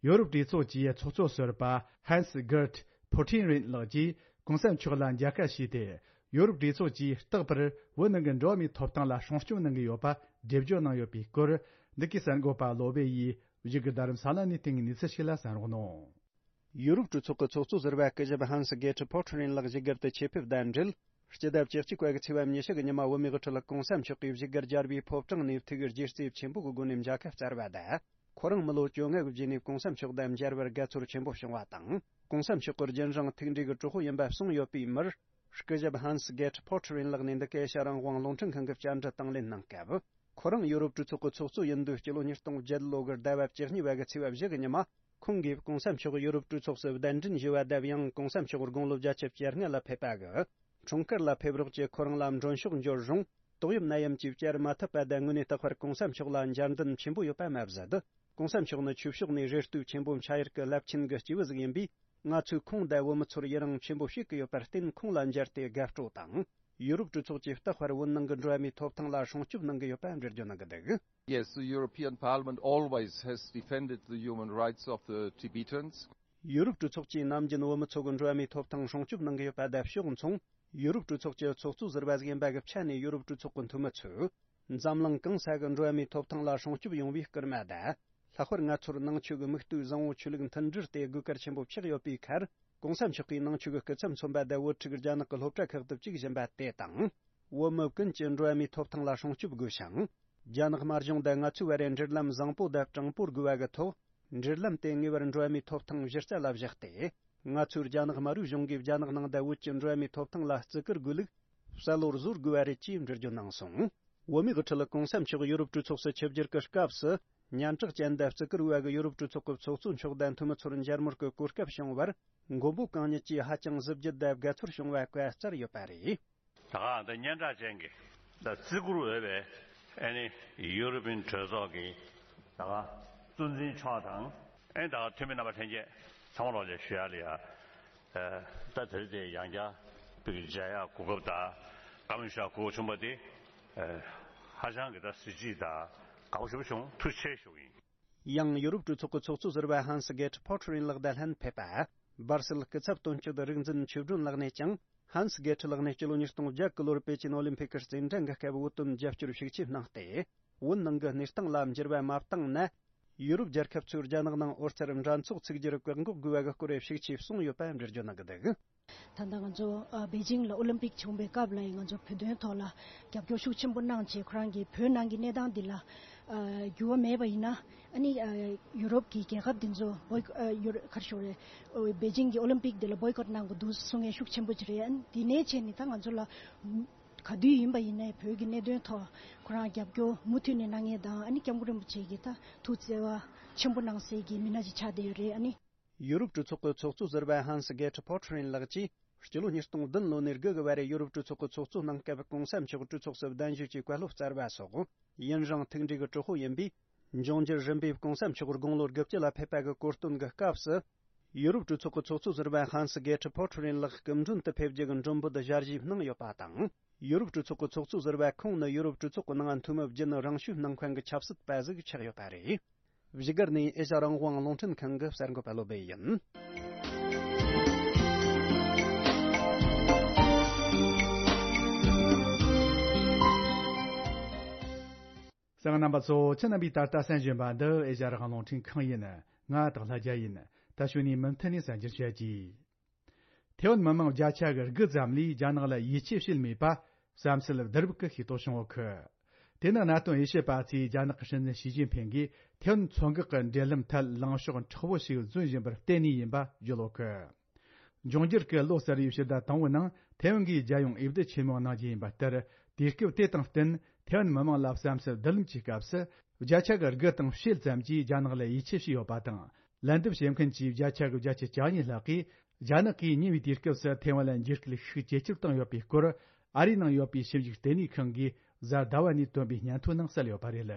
ཡོ་རོབ་གྲོས་ཚོགས་ཀྱི་ཚོགས་གཙོ་ཟུར་པ་ཧན་སི་གེར་ཕོ་ཁྲིན་རིན་ལགས་ཀྱིས་གོང་ས་མཆོག་ལ་མཇལ་ཁ་ཞུས་ཏེ། ཡོ་རོབ་གྲོས་ཚོགས་ཀྱིས་རྟག་པར་བོད་ནང་གི་འགྲོ་བ་མིའི་ཐོབ་ཐང་ལ་སྲུང་སྐྱོབ་གནང་གི་ཡོད་པ་འགྲེལ་བརྗོད་གནང་ཡོད་པའི་སྐོར། འདི་གའི་གསར་འགོད་པ་བློ་བྷེ་ཡིས་བཞུགས་སྒར་རྡ་རམ་ས་ལ་ནས་བཏང་གནས་ཚུལ་ཞིག་ལ་གསན་རོགས་གནང་། ཡུ་རོབ་གྲོས་ཚོགས་ཀྱི་ཚོགས་གཙོ་ཟུར་པ་སྐུ་ཞབས་ཧན་སི་གེ་ཁྲི་ཕོ་ཁྲི་རིན་ལགས་བཞུགས་སྒར་དུ་ཆེད་ཕེབས་དང་འབྲེལ། སྤྱི་ཟླ་བཅུ་གཅིག་པ་གི་ཚེས་པ་ཉི་ཤུ་གི་ཉི་མ་བོད་མིའི་དབུ་ཁྲིད་གོང་ས་མཆོག་གིས་བཞུགས་སྒར་རྒྱལ་བའི་ཕོ་བྲང་ནས་ཐུགས་རྗེ་བརྩེ་ཆེན་པོ་གི་སྒོ་ནས་མཇལ་ཁ་བསྩལ་བ་དང་། ཁོ་རང་མི་ལོ་བཅོ་ལྔ་གི་རྗེས་ནས་གོང་ས་མཆོག་དང་མཇལ་བར་དགའ་ཚོར་ཆེན་པོ་བྱུང་བ་དང་། གོང་ས་མཆོག་གི་རྒྱུན་རིང་ཐུགས་འདྲིས་ཀྱི་གྲོགས་པོ་ཡིན་པ་གསུངས་ཡོད་པའི་མིར། སྐུ་ཞབས་ཧན་སི་གེ་ཁྲི་ཕོ་ཁྲི་རིན་ལགས་ནས་འདི་ག་ཨེ་ཤ་ཡ་རང་དབང་རླུང་འཕྲིན་ཁང་གི་བཅར་འདྲི་དང་ལེན་གནང་སྐབས། ཁོ་རང་ཡུ་རོབ་གྲོས་ཚོགས་ཀྱི་ཚོགས་གཙོ་ཡིན་དུས་སྤྱི་ལོ་ཉིས་སྟོང་བརྒྱད་ལོ་གི་ཟླ་བ་བཅུ་གཉིས་པ་གི་ཚེས་པ་བཞི་གི་ཉི་མ། ཁོང་གིས་གོང་ས་མཆོག་ཡུ་རོབ་གྲོས་ཚོགས་སུ་གདན་འདྲེན་ཞུས་པ་དང་། ཡང་གོང་ས་མཆོག་དགུང་ལོ་བརྒྱད་ཅུ་གྱ་ལྔ་ལ་ཕེབས་པ་གི་འཁྲུངས་སྐར་ལ་ཕེབས་རོགས་ཀྱིས་ཁོ་རང་ལ་མགྲོན་ཤོག་འབྱོར་རུང་། ཏོག་དབྱིབས་ནད་ཡམས་ཀྱིས་བཅར་མ་ཐུབ་པ་དང་། དངོས་གནས་རྟག་པར་གོང་ས་མཆོག་ལ་འཇར་འདོན་ཆེན་པོ་ཡོད་པ་མ་ཟད། གོང་ས་མཆོག་ནི་ཆོས་ཕྱོགས་ནས་རེ་ལྟོས་ཆེན་པོ་འཆང་ཡུལ་གྱི་རླབས་ཆེན་གྱི་སྐྱེས་བུ་ཟིག་ཡིན་པས། ང་ཚོས་ཁོང་དང་བོད་མི་ཚོར་ཡི་རང་ཆེན་པོ་བྱེད་ཀྱི་ཡོད་པར་བརྟེན། ཁོང་ལ་མཇལ་ཏེ་དགའ་སྤྲོ་དང་། ཡུ་རོབ་གྲོས་ཚོགས་ཀྱིས་རྟག་པར་བོད་ནང་གི་འགྲོ་བ་མིའི་ཐོབ་ཐང་ལ་སྲུང་སྐྱོབ་གནང་གི་ཡོད་པ་འགྲེལ་བརྗོད་གནང་གི་འདུག། Yes, the European Parliament always has defended the human rights of the Tibetans. ཡུ་རོབ་གྲོས་ཚོགས་ཀྱིས་ནམ་རྒྱུན་བོད་མི་ཚོ་གི་འགྲོ་བ་མིའི་ཐོབ་ཐང་སྲུང་སྐྱོབ་གནང་གི་ཡོད་པ་དང་ཕྱོགས་མཚུངས། ཡུ་རོབ་གྲོས་ཚོགས་ཀྱི་ཚོགས་གཙོ་ཟུར་པ་ཟིག་ཡིན་པ་གི་ཆ་ནས། ཡུ་རོབ་གྲོས་ཚོགས་ཀྱི་འཐུས་མི་ཚོས་འཛམ་གླིང་གང་ས་གི་འགྲོ་བ་མིའི་ཐོབ་ཐང་ལ་སྲུང་སྐྱོབ་ཡོང་བའི་སྐུལ་མ་དང་། ལྷག་པར་ང་ཚོར་ནང་ཆོས་ཀྱི་མིག་ལྟོས་བཟང་བོ་ཆོས་ལུགས་མཐུན་སྒྲིལ་དེ་དགོས་གལ་ཆེན་པོ་ཆགས་ཡོད་པའི་ཁར། གོང་ས་མཆོག་གིས་ནང་ཆོས་ཀྱི་སྐུ་ཚབ་མཚོན་པ་དང་བོད་ཕྲུག་རྒྱ་ནག་གི་སློབ་གྲྭ་ཁག་ཏུ་བཅུག་བཞིན་པ་དེ་དང་། བོད་མི་ཀུན་གྱི་འགྲོ་བ་མིའི་ཐོབ་ཐང་ལ་སྲུང་སྐྱོབ་དགོས་ཤིང་། རྒྱ་ནག་དམར་གཞུང་དང་ང་ཚོའི་བར་འབྲེལ་ལམ་བཟང་པོ་དང་དྲང་པོར་དགོས་པ་གི་ཐོག་འབྲེལ་ལམ་དེ་ངེས་པར་འགྲོ་བ་མིའི་ཐོབ་ཐང་གཞི་རྩ་ལ་བཞག་སྟེ། ང་ཚོའི་རྒྱ་ནག་དམར་པོའི་གཞུང་གིས་རྒྱ་ནག་ནང་དང་བོད་ཀྱི་འགྲོ་བ་མིའི་ཐོབ་ཐང་ལ་བརྩི་བཀུར་དགོས་ལུགས་གསལ་བོར་བཟོ་དགོས་པ་རེད་ཅེས་འགྲེལ་བརྗོད་གནང་སོང་། བོད་མིའི་དབུ་ཁྲིད་གོང་ས་མཆོག་ཡུ་རོབ་གྲོས་ཚོགས་སུ་ཆིབས་བསྒྱུར་གྱི་སྐབས་སུ། སྙན་གྲགས་ཅན་དང་བརྩི་བཀུར་བ་གི་ཡུ་རོབ་གྲོས་ཚོགས་ཀྱི་ཚོགས་གཙོ་མཆོག་དང་འཐུས་མི་ཚོར་མཇལ་མོལ་གྱི་གོ་སྐབས་བྱུང་བར། མགོན་པོ་གང་ཉིད་ཀྱིས་ཧ་ཅང་གཟི་བརྗིད་དང་དགའ་ཚོར་བྱུང་བ་བཀའ་སྩལ་ཡོད་པ་རེད། ད་ག་ད་སྙན་གྲགས་ཅན་གྱི་ད་བརྩི་བཀུར་འོས་པའི་ཨ་ནི་ཡུ་རོབ་པའི་གྲོས་ཚོགས་ཀྱི་ད་ག་གཙོ་འཛིན་མཆོག་དང་། ཨ་ནི་ད་ག་འཐུས་མི་རྣམ་པ་ལྷན་རྒྱས་ཚང་མ་ལོག་ལས་ཞུ་ཡ་ལ་ཡ། ད་དེ་རིང་དེ་ཡང་བསྐྱར་བོད་ཀྱི་མཇལ་ཡག་གོ་སྐབས་དང་བཀའ་མོལ་ཞུ་ཡག་གོ་སྐབས་བྱུང་བ་དེ་ཧ་ཅང་གི་ད་གཟི་བརྗིད་དང་དགའ་པོ་ཞེ་པོ་བྱུང་། ཐུགས་རྗེ་ཆེ་ཞུ་གི་ཡིན། ཡང་ཡུ་རོབ་གྲོས་ཚོགས་ཀྱི་ཚོགས་གཙོ་ཟུར་པ་ཧན་སི་གེ་ཊི་ཕོ་ཊར་ཡིན་ལགས་དང་ལྷན་ཕེབས་པ། སྦར་སེལ་སྐུ་ཚབ་དོན་གཅོད་རིག་འཛིན་ཆོས་སྒྲོན་ལགས་ནས་ཀྱང་། ཧན་སི་གེ་ཊི་ལགས་ནས་སྤྱི་ལོ་ཉིས་སྟོང་བརྒྱད་གི་ལོར་པེ་ཅིན་ཨོ་ལིམ་ཕིག་གི་རྩེད་འགྲན་གྱི་སྐབས་བོད་དོན་རྒྱབ་སྐྱོར་ཤུགས་ཆེ་གནང་སྟེ། བོད་ནང་གི་གནས་སྟངས་ལ་འགྱུར་བ་མ་བཏང་ན། ཡུ་རོབ་རྒྱལ་ཁབ་ཚོས་རྒྱ་ནག་ནང་འོད་གསལ་འགྲན་ཚོགས་ཚུགས་རྒྱུར་བཀག་འགོག་དགོས་པ་གི་སྐོར་ཤུགས་ཆེ་གསུངས་ཡོད་པ་འགྲེལ་བརྗོད་གནང་གི་འདུག། ད་ལྟ་ང་ཚོ་ཨ་པེ་ཅིང་ལ་ཨོ་ལིམ་པིག་བྱུང་བའི་སྐབས་ལ་ཡང་ང་ཚོ་བོད་དོན་ཐོག་ལ་རྒྱབ་སྐྱོར་ཤུགས་ཆེན་པོ་གནང་བྱས། ཁོ་རང་གིས་བོད་ནང་གི་གནས་སྟངས་འདི་ལ་ཨ་འགྱུར་བ་མེད་པ་ཡིན་ན། ཨ་ནི་ཨ་ཡུ་རོབ་ཀྱི་རྒྱལ་ཁབ་འདི་ཚོ་བོའི་ཨ་ཡུ་རོ་ག་རེ་ཞུ་དགོས་རེད། ཨོ་པེ་ཅིང་གི་ཨོ་ལིམ་པིག་འདི་ལ་བོའི་ཀོཊ་གནང་དགོས་འདུག་གསུང་མཁན་ཤུགས་ཆེན་པོ་ཅིག་རེད། ཨ་ནི་འདི་ནས་བྱས་ནས་ད་ང་ཚོ་ལ་ག་དུས་ཡིན་པ་ཡིན་ནའི་བོད་ཀྱི་གནད་དོན་ཐོག་ཁོ་རང་རྒྱབ་སྐྱོར་མུ་མཐུད་ནས་གནང་མཁན་དང་། ཨ་ནི་སྐྱབས་མགོན་རིན་པོ་ཆེ་གིས་ད་ཐུགས་བརྩེ་བ་ཆེན་པོ་གནང་སའི་གི་མི་སྣ་ཅིག་ཆགས་བསྡད་ཡོད་རེད། ཨ་ནི། ཡུ་རོབ་གྲོས་ཚོགས་ཀྱི་ཚོགས་གཙོ་ཟུར་པ་ཧན་སི་གེ་ཊི་ཕོ་ཊར་ཡིན་ལགས་ཀྱིས། སྤྱི་ལོ་ཉིས་སྟོང་བདུན་ལོ་ནས་དགུ་གི་བར་ཡུ་རོབ་གྲོས་ཚོགས་ཀྱི་ཚོགས་གཙོ་གནང་སྐབས་གོང་ས་མཆོག་གྲོས་ཚོགས་སུ་གདན་ཞུས་ཀྱི་བཀའ་སློབ་སྩལ་བ་སོགས། ཡུན་རིང་མཐུན་འབྲེལ་གྱི་གྲོགས་པོ་ཡིན་པས། འབྱུང་འགྱུར་རིམ་པས་གོང་ས་མཆོག་དགུང་ལོ་དགུ་བཅུ་ལ་ཕེབས་པ་གི་གོ་སྟོན་གྱི་སྐབས་སུ། ཡུ་རོབ་གྲོས་ཚོགས་ཀྱི་ཚོགས་གཙོ་ཟུར་པ་ཧན་སི་གེ་ཊི་ཕོ་ཊར་ཡིན་ལགས་སྐུ་མགྲོན་དུ་ཕེབས་རྒྱུ་གི་མགྲོན་འབོད་ཞལ་བཞེས་གནང་ཡོད་པ་དང་། ཡུ་རོབ་གྲོས་ཚོགས་ཀྱི་ཚོགས་གཙོ་ཟུར་པ་ཁོང་ནི་ཡུ་རོབ་གྲོས་ཚོགས་ཀྱི་ནང་འཐུས་མི་བརྒྱུད་ནས་རང་ཞུ་གནང་མཁན་གྱི་ཆབ་སྲིད་པ་ཞིག་ཆགས་ཡོད་པ་རེད། བཞུགས་སྒར་ནས་ཨེ་ཤ་རང་དབང་རླུང་འཕྲིན་ཁང་གི་གསར་འགོད་པ་བློ་སྦེ་ཡིན། གསན་མཁན་རྣམ་པ་ཚོ། ཁྱེད་རྣམ་པས་ད་ལྟ་གསན་བཞིན་པ་འདི་ཨེ་ཤ་རང་དབང་རླུང་འཕྲིན་ཁང་ཡིན། ང་སྟག་ལྷ་རྒྱལ་ཡིན། ད་གཞུག་ནས་མུ་མཐུད་ནས་གསན་རྒྱུར་བྱེད་ཀྱིས། ཐེ་ཝན་མི་མང་བརྒྱ་ཆ་གི་དགུ་ཙམ་ལས་རྒྱ་ནག་ལ་ཡིད་ཆེས་བྱེད་མེད་པ་བསམ་ཚུལ་བསྡུ་རུབ་ཀྱིས་ཤེས་རྟོགས་བྱུང་ཡོད་གི། དེ་ནི་གནད་དོན་དབྱེ་ཞིབ་པ་ཚོས་རྒྱ་ནག་གི་སྲིད་འཛིན་ཞི་ཅིན་ཕིང་གིས་ཐེ་ཝན་མཚོ་འགག་གི་འབྲེལ་ལམ་ཐད་ལངས་ཕྱོགས་མཁྲེགས་པོ་ཞིག་འཛིན་བཞིན་པར་བརྟེན་ནས་ཡིན་པ་བརྗོད་ཡོད་གི། འབྱུང་འགྱུར་གྱི་ལོ་གསར་བའི་ཕྱི་ཟླ་དང་པོའི་ནང་ཐེ་ཝན་གྱིས་རྒྱལ་ཡོངས་འོས་བསྡུ་ཆེན་མོ་གནང་རྒྱུ་ཡིན་པ་ལྟར། དུས་སྐབས་དེ་དང་བསྟུན་ཐེ་ཝན་མི་མང་ལ་བསམ་ཚུལ་བསྡུ་ལེན་གྱི་སྐབས་སུ། བརྒྱ་ཆ་གི་དགུ་དང་ཕྱེད་ཙམ་གྱིས་རྒྱ་ནག་ལ་ཡིད་ཆེས་བྱས་ཡོད་པ་དང་། ལན་འདེབས་བྱེད་མཁན་གྱི་བརྒྱ་ཆ་གི་བརྒྱད་ཅུ་གྱ་གཉིས་ལྷག་གིས། རྒྱ་ནག་གིས་ཉེ་བའི་དུས་སྐབས་སུ་ཐེ་ཝན་ལ་འཇིགས་སྐུལ་ཤུགས་ཇེ་ཆེར་བཏང་ཡོད་པའི་སྐོར། ཨ་རིའི་ནང་ཡོད་པའི་ཞིབ་འཇུག་ལྟེ་གནས་ཁང་གིས་གཟའ་ཟླ་བ་ནས་བཏོན་པའི་སྙན་ཐོའི་ནང་གསལ་ཡོད་པ་རེད།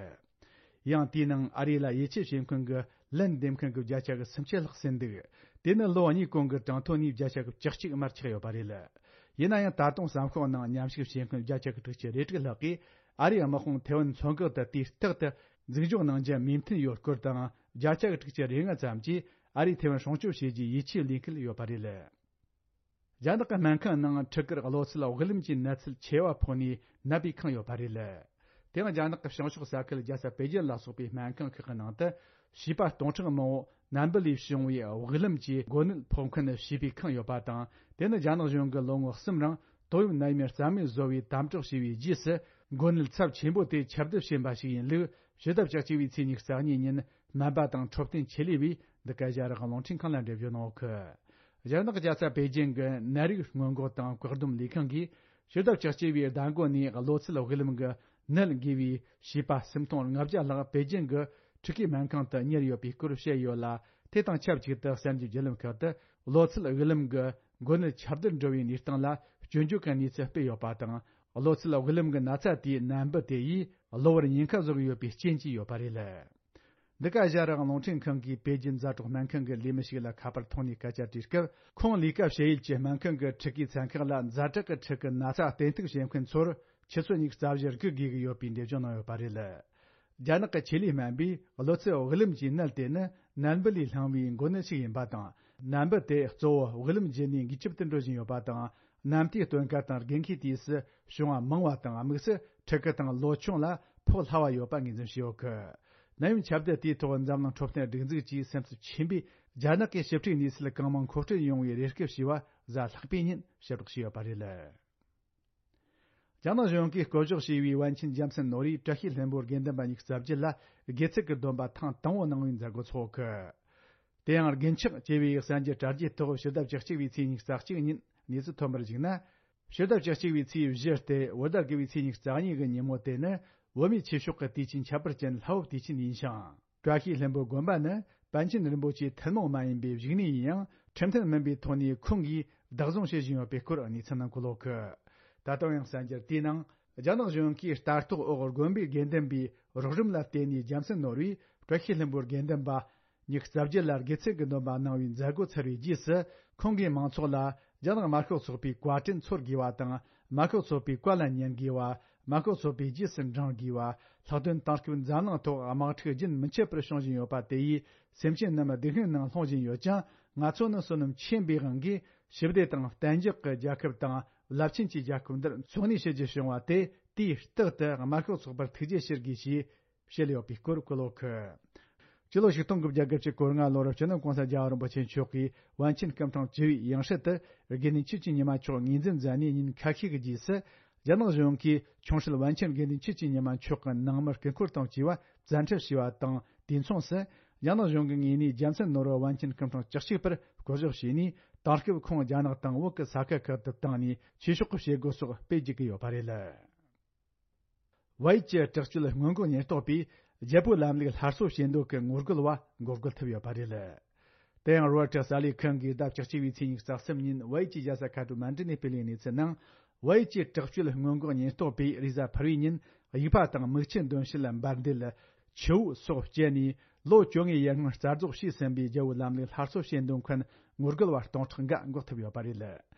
ཡང་དེའི་ནང་ཨ་རི་ལ་ཡིད་ཆེས་བྱེད་མཁན་གྱི་ལན་འདེབས་མཁན་གྱི་བརྒྱ་ཆ་གི་སུམ་ཅུ་ལྷག་ཟིན་འདུག། དེ་ནི་ལོ་གཉིས་གོང་གི་གྲངས་ཐོ་ནས་བརྒྱ་ཆ་གི་བཅུ་གཅིག་མར་ཆག་ཡོད་པ་རེད། ཡིན་ན་ཡང་ད་དུང་གསར་ཤོག་ནང་མཉམ་ཞུགས་བྱེད་མཁན་བརྒྱ་ཆ་གི་དྲུག་ཅུ་རེ་དྲུག་ལྷག་གིས་ཨ་རིའི་དམག་དཔུང་ཐེ་ཝན་མཚོ་འགག་ཏུ་དུས་རྟག་ཏུ་འཛུགས་འཇོག་གནང་རྒྱུ་མོས་མཐུན་ཡོད་སྐོར་དང་། བརྒྱ་ཆ་གི་དྲུག་ཅུ་རེ་ལྔ་ཙམ་གྱིས་ཨ་རིས་ཐེ་ཝན་སྲུང་སྐྱོབ་བྱེད་རྒྱུའི་ཡིད་ཆེས་ལེན་གྱི་ཡོད་པ་རེད། རྒྱ་ནག་གི་སྨན་ཁང་ནང་ཕྲུ་གུར་གློ་ཚད་དབུགས་ལམ་གྱི་ནད་ཚབས་ཆེ་བ་ཕོག་ནས་ནད་པས་ཁེངས་ཡོད་པ་རེད། དེའང་རྒྱ་ནག་གི་བྱང་ཕྱོགས་ས་ཁུལ་རྒྱལ་ས་པེ་ཅིན་ལ་སོགས་པའི་སྨན་ཁང་ཁག་གི་ནང་དུ་བྱིས་པ་སྟོང་ཕྲག་མང་བོ་ནད་འབུ་ལས་བྱུང་བའི་དབུགས་ལམ་གྱི་འགོ་ནད་ཕོག་མཁན་བྱིས་པས་ཁེངས་ཡོད་པ་དང་། དེ་ནི་རྒྱ་ནག་གཞུང་གིས་ལོ་ངོ་གསུམ་རིང་ཏོག་དབྱིབས་ནད་ཡམས་རྩ་མེད་བཟོ་བའི་དམ་དྲག་བྱས་པའི་རྗེས་སུ་འགོ་ནད་ཚབས་ཆེན་པོ་དེ་ཁྱབ་གདལ་ཕྱིན་པ་ཞིག་ཡིན་ལུགས་ཕྱི་ཟླ་བཅུ་གཅིག་པའི་ཚེས་ཉི་ཤུ་རྩ་གཉིས་ཉིན་སྨན་པ་དང་འཕྲོད་བསྟེན་ཆེད་ལས་པས་འདི་ག་ཨེ་ཤ་ཡ་རང་དབང་རླུང་འཕྲིན་ཁང་ལ་འགྲེལ་བརྗོད་གནང་ཡོད་གི། རྒྱ་ནག་རྒྱལ་ས་པེ་ཅིན་གྱི་ནད་རིགས་སྔོན་འགོག་དང་བཀག་སྡོམ་ལས་ཁང་གིས་ཕྱི་ཟླ་བཅུ་གཅིག་པའི་ཟླ་འགོ་ནས་གློ་ཚད་དབུགས་ལམ་གྱི་ནད་འགོས་པའི་བྱིས་པ་སུམ་སྟོང་ལྔ་བརྒྱ་ལྷག་པེ་ཅིན་གྱི་ཕྲུ་གུའི་སྨན་ཁང་དུ་ཉར་ཡོད་པའི་སྐོར་བཤད་ཡོད་ལ། དེ་དང་ཆབས་ཅིག་ཏུ་གསར་འགྱུར་བརྒྱུད་ལམ་ཁག་ཏུ་གློ་ཚད་དབུགས་ལམ་གྱི་འགོ་ནད་ཁྱབ་གདལ་འགྲོ་བའི་གནས་སྟངས་ལ་སྐྱོན་བརྗོད་ཀྱི་གནས་ཚུལ་སྤེལ་ཡོད་པ་དང་། གློ་ཚད་དབུགས་ལམ་གྱི་ན་ཚ་དེའི་ནད་འབུ་དེ་ཡིས་གློ་བུར་ཉེན་ཁ་བཟོ་གི་ཡོད་པའི་རྐྱེན་གྱིས་ཡོད་པ་རེད། འདི་ག་ཨེ་ཤ་ཡ་རང་དབང་རླུང་འཕྲིན་ཁང་གིས་པེ་ཅིན་ཛ་དྲག་སྨན་ཁང་གི་ལས་མི་ཞིག་ལ་ཁ་པར་ཐོག་ནས་སྐད་ཆ་དྲིས་སྐབས། ཁོང་ལས་ཀ་བྱེད་ཡུལ་གྱི་སྨན་ཁང་གི་ཕྲུ་གུའི་ཚན་ཁག་ལ་ཛ་དྲག་གི་ཕྲུ་གུ་ན་ཚ་བསྟེན་གཏུག་བྱེད་མཁན་ཚོར་ཆུ་ཚོད་ཉི་ཤུ་རྩ་བཞི་སྒུག་དགོས་ཀྱི་ཡོད་པའི་འགྲེལ་བརྗོད་གནང་ཡོད་པ་རེད། རྒྱ་ནག་གི་ཆེད་ལས་སྨན་པས་གློ་ཚད་དབུགས་ལམ་གྱི་ནད་དེ་ནི་ནད་འབུ་ལས་བསླངས་པའི་འགོ་ནད་ཞིག་ཡིན་པ་དང་། ནད་འབུ་དེ་གཙོ་བོ་དབུགས་ལམ་བརྒྱུད་ནས་འགོས་ཁྱབ་ཏུ་འགྲོ་བཞིན་ཡོད་པ་དང་། ནད་བརྟག་སྟོན་ཁ་དང་འགོས་མཁན་དུས་སུ་བྱུང་བ་མང་བ་དང་། དམིགས་སུ་ཕྲུ་གུ་དང་ལོ་ཆུང་ལ་ཕོག་སླ་བ་ཡོད་པ་ངོས་འཛིན་བྱས་ཡོད་གི། ནད་ཡམས་ཁྱབ་གདལ་དེའི་ཐོག་འཛམ་གླིང་འཕྲོད་བསྟེན་སྒྲིག་འཛུགས་ཀྱིས་སེམས་འཚབ་ཆེན་པོས་རྒྱ་ནག་གི་ཞིབ་ཕྲའི་གནས་ཚུལ་གང་མང་མཁོ་སྤྲོད་ཡོང་བའི་རེ་སྐུལ་བྱས་པ་གཟའ་ལྷག་པའི་ཉིན་ཕྱིར་སྒྲོག་བྱས་ཡོད་པ་རེད། རྒྱ་ནག་གཞུང་གིས་བསྐོ་གཞག་བྱས་པའི་པཎ་ཆེན་རྒྱལ་མཚན་ནོར་བུས་བཀྲ་ཤིས་ལྷུན་པོའི་དགེ་འདུན་པ་ཉི་ཤུ་རྩ་བརྒྱད་ལ་དགེ་ཚུལ་གྱི་སྡོམ་པ་ཐེངས་དང་པོ་གནང་བའི་མཛད་སྒོ་འཚོགས་གི། དེ་ཡང་དགེ་འཁྱགས་ཅེས་པའི་གསར་འགྱུར་དྲ་རྒྱའི་ཐོག་ཕྱི་ཟླ་བཅུ་གཅིག་པའི་ཚེས་ཉི་ཤུ་རྩ་གཅིག་ཉིན་གནས་ཚུལ་ཐོན་པར་གཞིགས་ན། ཕྱི་ཟླ་བཅུ་གཅིག་པའི་ཚེས་བཞི་སྟེ་བོད་ཟླ་དགུ་པའི་ཚེས་ཉི་ཤུ་རྩ་གཉིས་ཀྱི་ཉིན་མོ་དེ་ནི་བོད་མིའི་ཆོས་ཕྱོགས་ཀྱི་དུས་ཆེན་ཁྱད་པར་ཅན་ལྷ་བབས་དུས་ཆེན་ཡིན་ཞིང་། བཀྲ་ཤིས་ལྷུན་པོ་དགོན་པ་ནི་པཎ་ཆེན་རིན་པོ་ཆེའི་ཐུན་མོང་མ་ཡིན་པའི་བཞུགས་གནས་ཡིན་ཡང་། ཁྲིམས་མཐུན་མིན་པའི་ཐོག་ནས་ཁོང་གིས་བདག་བཟུང་བྱེད་བཞིན་ཡོད་པའི་སྐོར་གནས་ཚུལ་ནང་འཁོད་ཡོད་གི། ད་དུང་ཡང་གསར་འགྱུར་དེའི་ནང་། རྒྱ་ནག་གཞུང་གིས་ལྟ་རྟོག་འོག་དགོན་པའི་དགེ་འདུན་པའི་རོགས་རམ་ལ་བརྟེན་ནས་རྒྱལ་མཚན་ནོར་བུས་བཀྲ་ཤིས་ལྷུན་པོའི་དགེ་འདུན་པ་ཉི་ཤུ་རྩ་བརྒྱད་ལ་དགེ་ཚུལ་གྱི་སྡོམ་པ་གནང་བའི་མཛད་སྒོ་ཚར་བའི་རྗེས་སུ། ཁོང་གིས་མང་ཚོགས་ལ་རྒྱ་ནག་དམར་ཤོག་ཚོགས་པའི་བཀའ་དྲིན་འཚོལ་དགོས་པ་དང་། དམར་ཤོག་ཚོགས་པའི་བཀའ་ལ་ཉན་དགོས་པ། དམར་ཤོག་ཚོགས་པའི་རྗེས་སུ་འབྲང་དགོས་པ། ལྷག་དོན་དེང་སྐབས་འཛམ་གླིང་ཐོག་དམག་འཁྲུག་རྒྱུན་མི་འཆད་པར་བྱུང་བཞིན་ཡོད་པ་དེ་ཡིས་སེམས་ཅན་རྣམས་སྡུག་བསྔལ་ནང་ལྷུང་བཞིན་ཡོད་ཅིང་། ང་ཚོ་ནི་བསོད་ནམས་ཆེན་པོའི་དབང་གིས་ཞི་བདེ་དང་གཏན་འཇགས་ཀྱི་རྒྱལ་ཁབ་དང་རླབས་ཆེན་གྱི་རྒྱལ་ཁབ་འདིར་འཚོ་གནས་བྱེད་རྒྱུ་བྱུང་བ་དེ་དུས་རྟག་ཏུ་དམར་ཤོག་ཚོགས་པར་ཐུགས་རྗེ་ཆེ་ཞུ་དགོས་ཞེས་བཤད་ཡོད་པའི་སྐོར་བཀོད་ཡོད་གི། སྤྱི་ལོ་ཆིག་སྟོང་དགུ་བརྒྱ་དགུ་བཅུ་གོ་ལྔ་ལོར་སྤྱི་ནོར་༸གོང་ས་༸རྒྱལ་བ་རིན་པོ་ཆེ་མཆོག་གིས་པཎ་ཆེན་སྐུ་ཕྲེང་བཅུ་བའི་ཡང་སྲིད་དུ་དགེ་འདུན་ཆོས་ཀྱི་ཉི་མ་མཆོག་ངོས་འཛིན་མཛད་ནས་ཉིན་ཁ་ཤས་ཀྱི་རྗེས་སུ། རྒྱ་ནག་གཞུང་གིས་ཆུང་སྲིད་པཎ་ཆེན་དགེ་འདུན་ཆོས་ཀྱི་ཉི་མ་མཆོག་གི་ནང་མི་སྐུ་འཁོར་དང་བཅས་པ་བཙན་ཁྲིད་བྱས་པ་དང་། དུས་མཚུངས་སུ། རྒྱ་ནག་གཞུང་གི་ངོས་ནས་རྒྱལ་མཚན་ནོར་བུ་པཎ་ཆེན་སྐུ་ཕྲེང་བཅུ་གཅིག་པར་བསྐོ་གཞག་བྱས་ནས། དེང་སྐབས་ཁོང་རྒྱ་ནག་དང་བོད་ཀྱི་ས་ཁུལ་ཁག་ཏུ་བཏང་ནས་ཆོས་ཕྱོགས་ཀྱི་བྱེད་སྒོ་སོགས་སྤེལ་བཅུག་གི་ཡོད་པ་རེད། བལ་ཡུལ་གྱི་དྲག་སྤྱོད་སྔོན་འགོག་ཉེན་རྟོག་པས་རྒྱལ་པོའི་ལམ་ལུགས་སླར་གསོ་བྱེད་འདོད་ཀྱི་ངོ་རྒོལ་བ་འགོག་རྒོལ་ཐུབ་ཡོད་པ་རེད། དེ་ཡང་རོའི་ཊར་གསར་ལས་ཁང་གིས་ཟླ་བཅུ་གཅིག་པའི་ཚེས་ཉི་ཤུ་རྩ་གསུམ་ཉིན་བལ་ཡུལ་གྱི་རྒྱལ་ས་ཁ་ཐ་མན་ཌུ་ནས་སྤེལ་བའི་གནས་ཚུལ་ནང་། བལ་ཡུལ་གྱི་དྲག་སྤྱོད་སྔོན་འགོག་ཉེན་རྟོག་པས་རེས་གཟའ་ཕུར་བུའི་ཉིན་དབྱུག་པ་དང་མིག་ཆུ་འདོན་བྱེད་ལ་འབར་མདེལ། ཆུ་བོ་སོགས་སྤྱད་ནས་ལོ་བཅོ་ལྔའི་ཡར་སྔོན་རྩ་རྫོགས་བྱས་ཟིན་པའི་རྒྱལ་པོའི་ལམ་ལུགས་སླར་གསོ་བྱེད་འདོད་མཁན་ངོ་རྒོལ་བ་སྟོང་ཕྲག་འགའ་འགོག་ཐུབ་ཡོད་པ་རེད།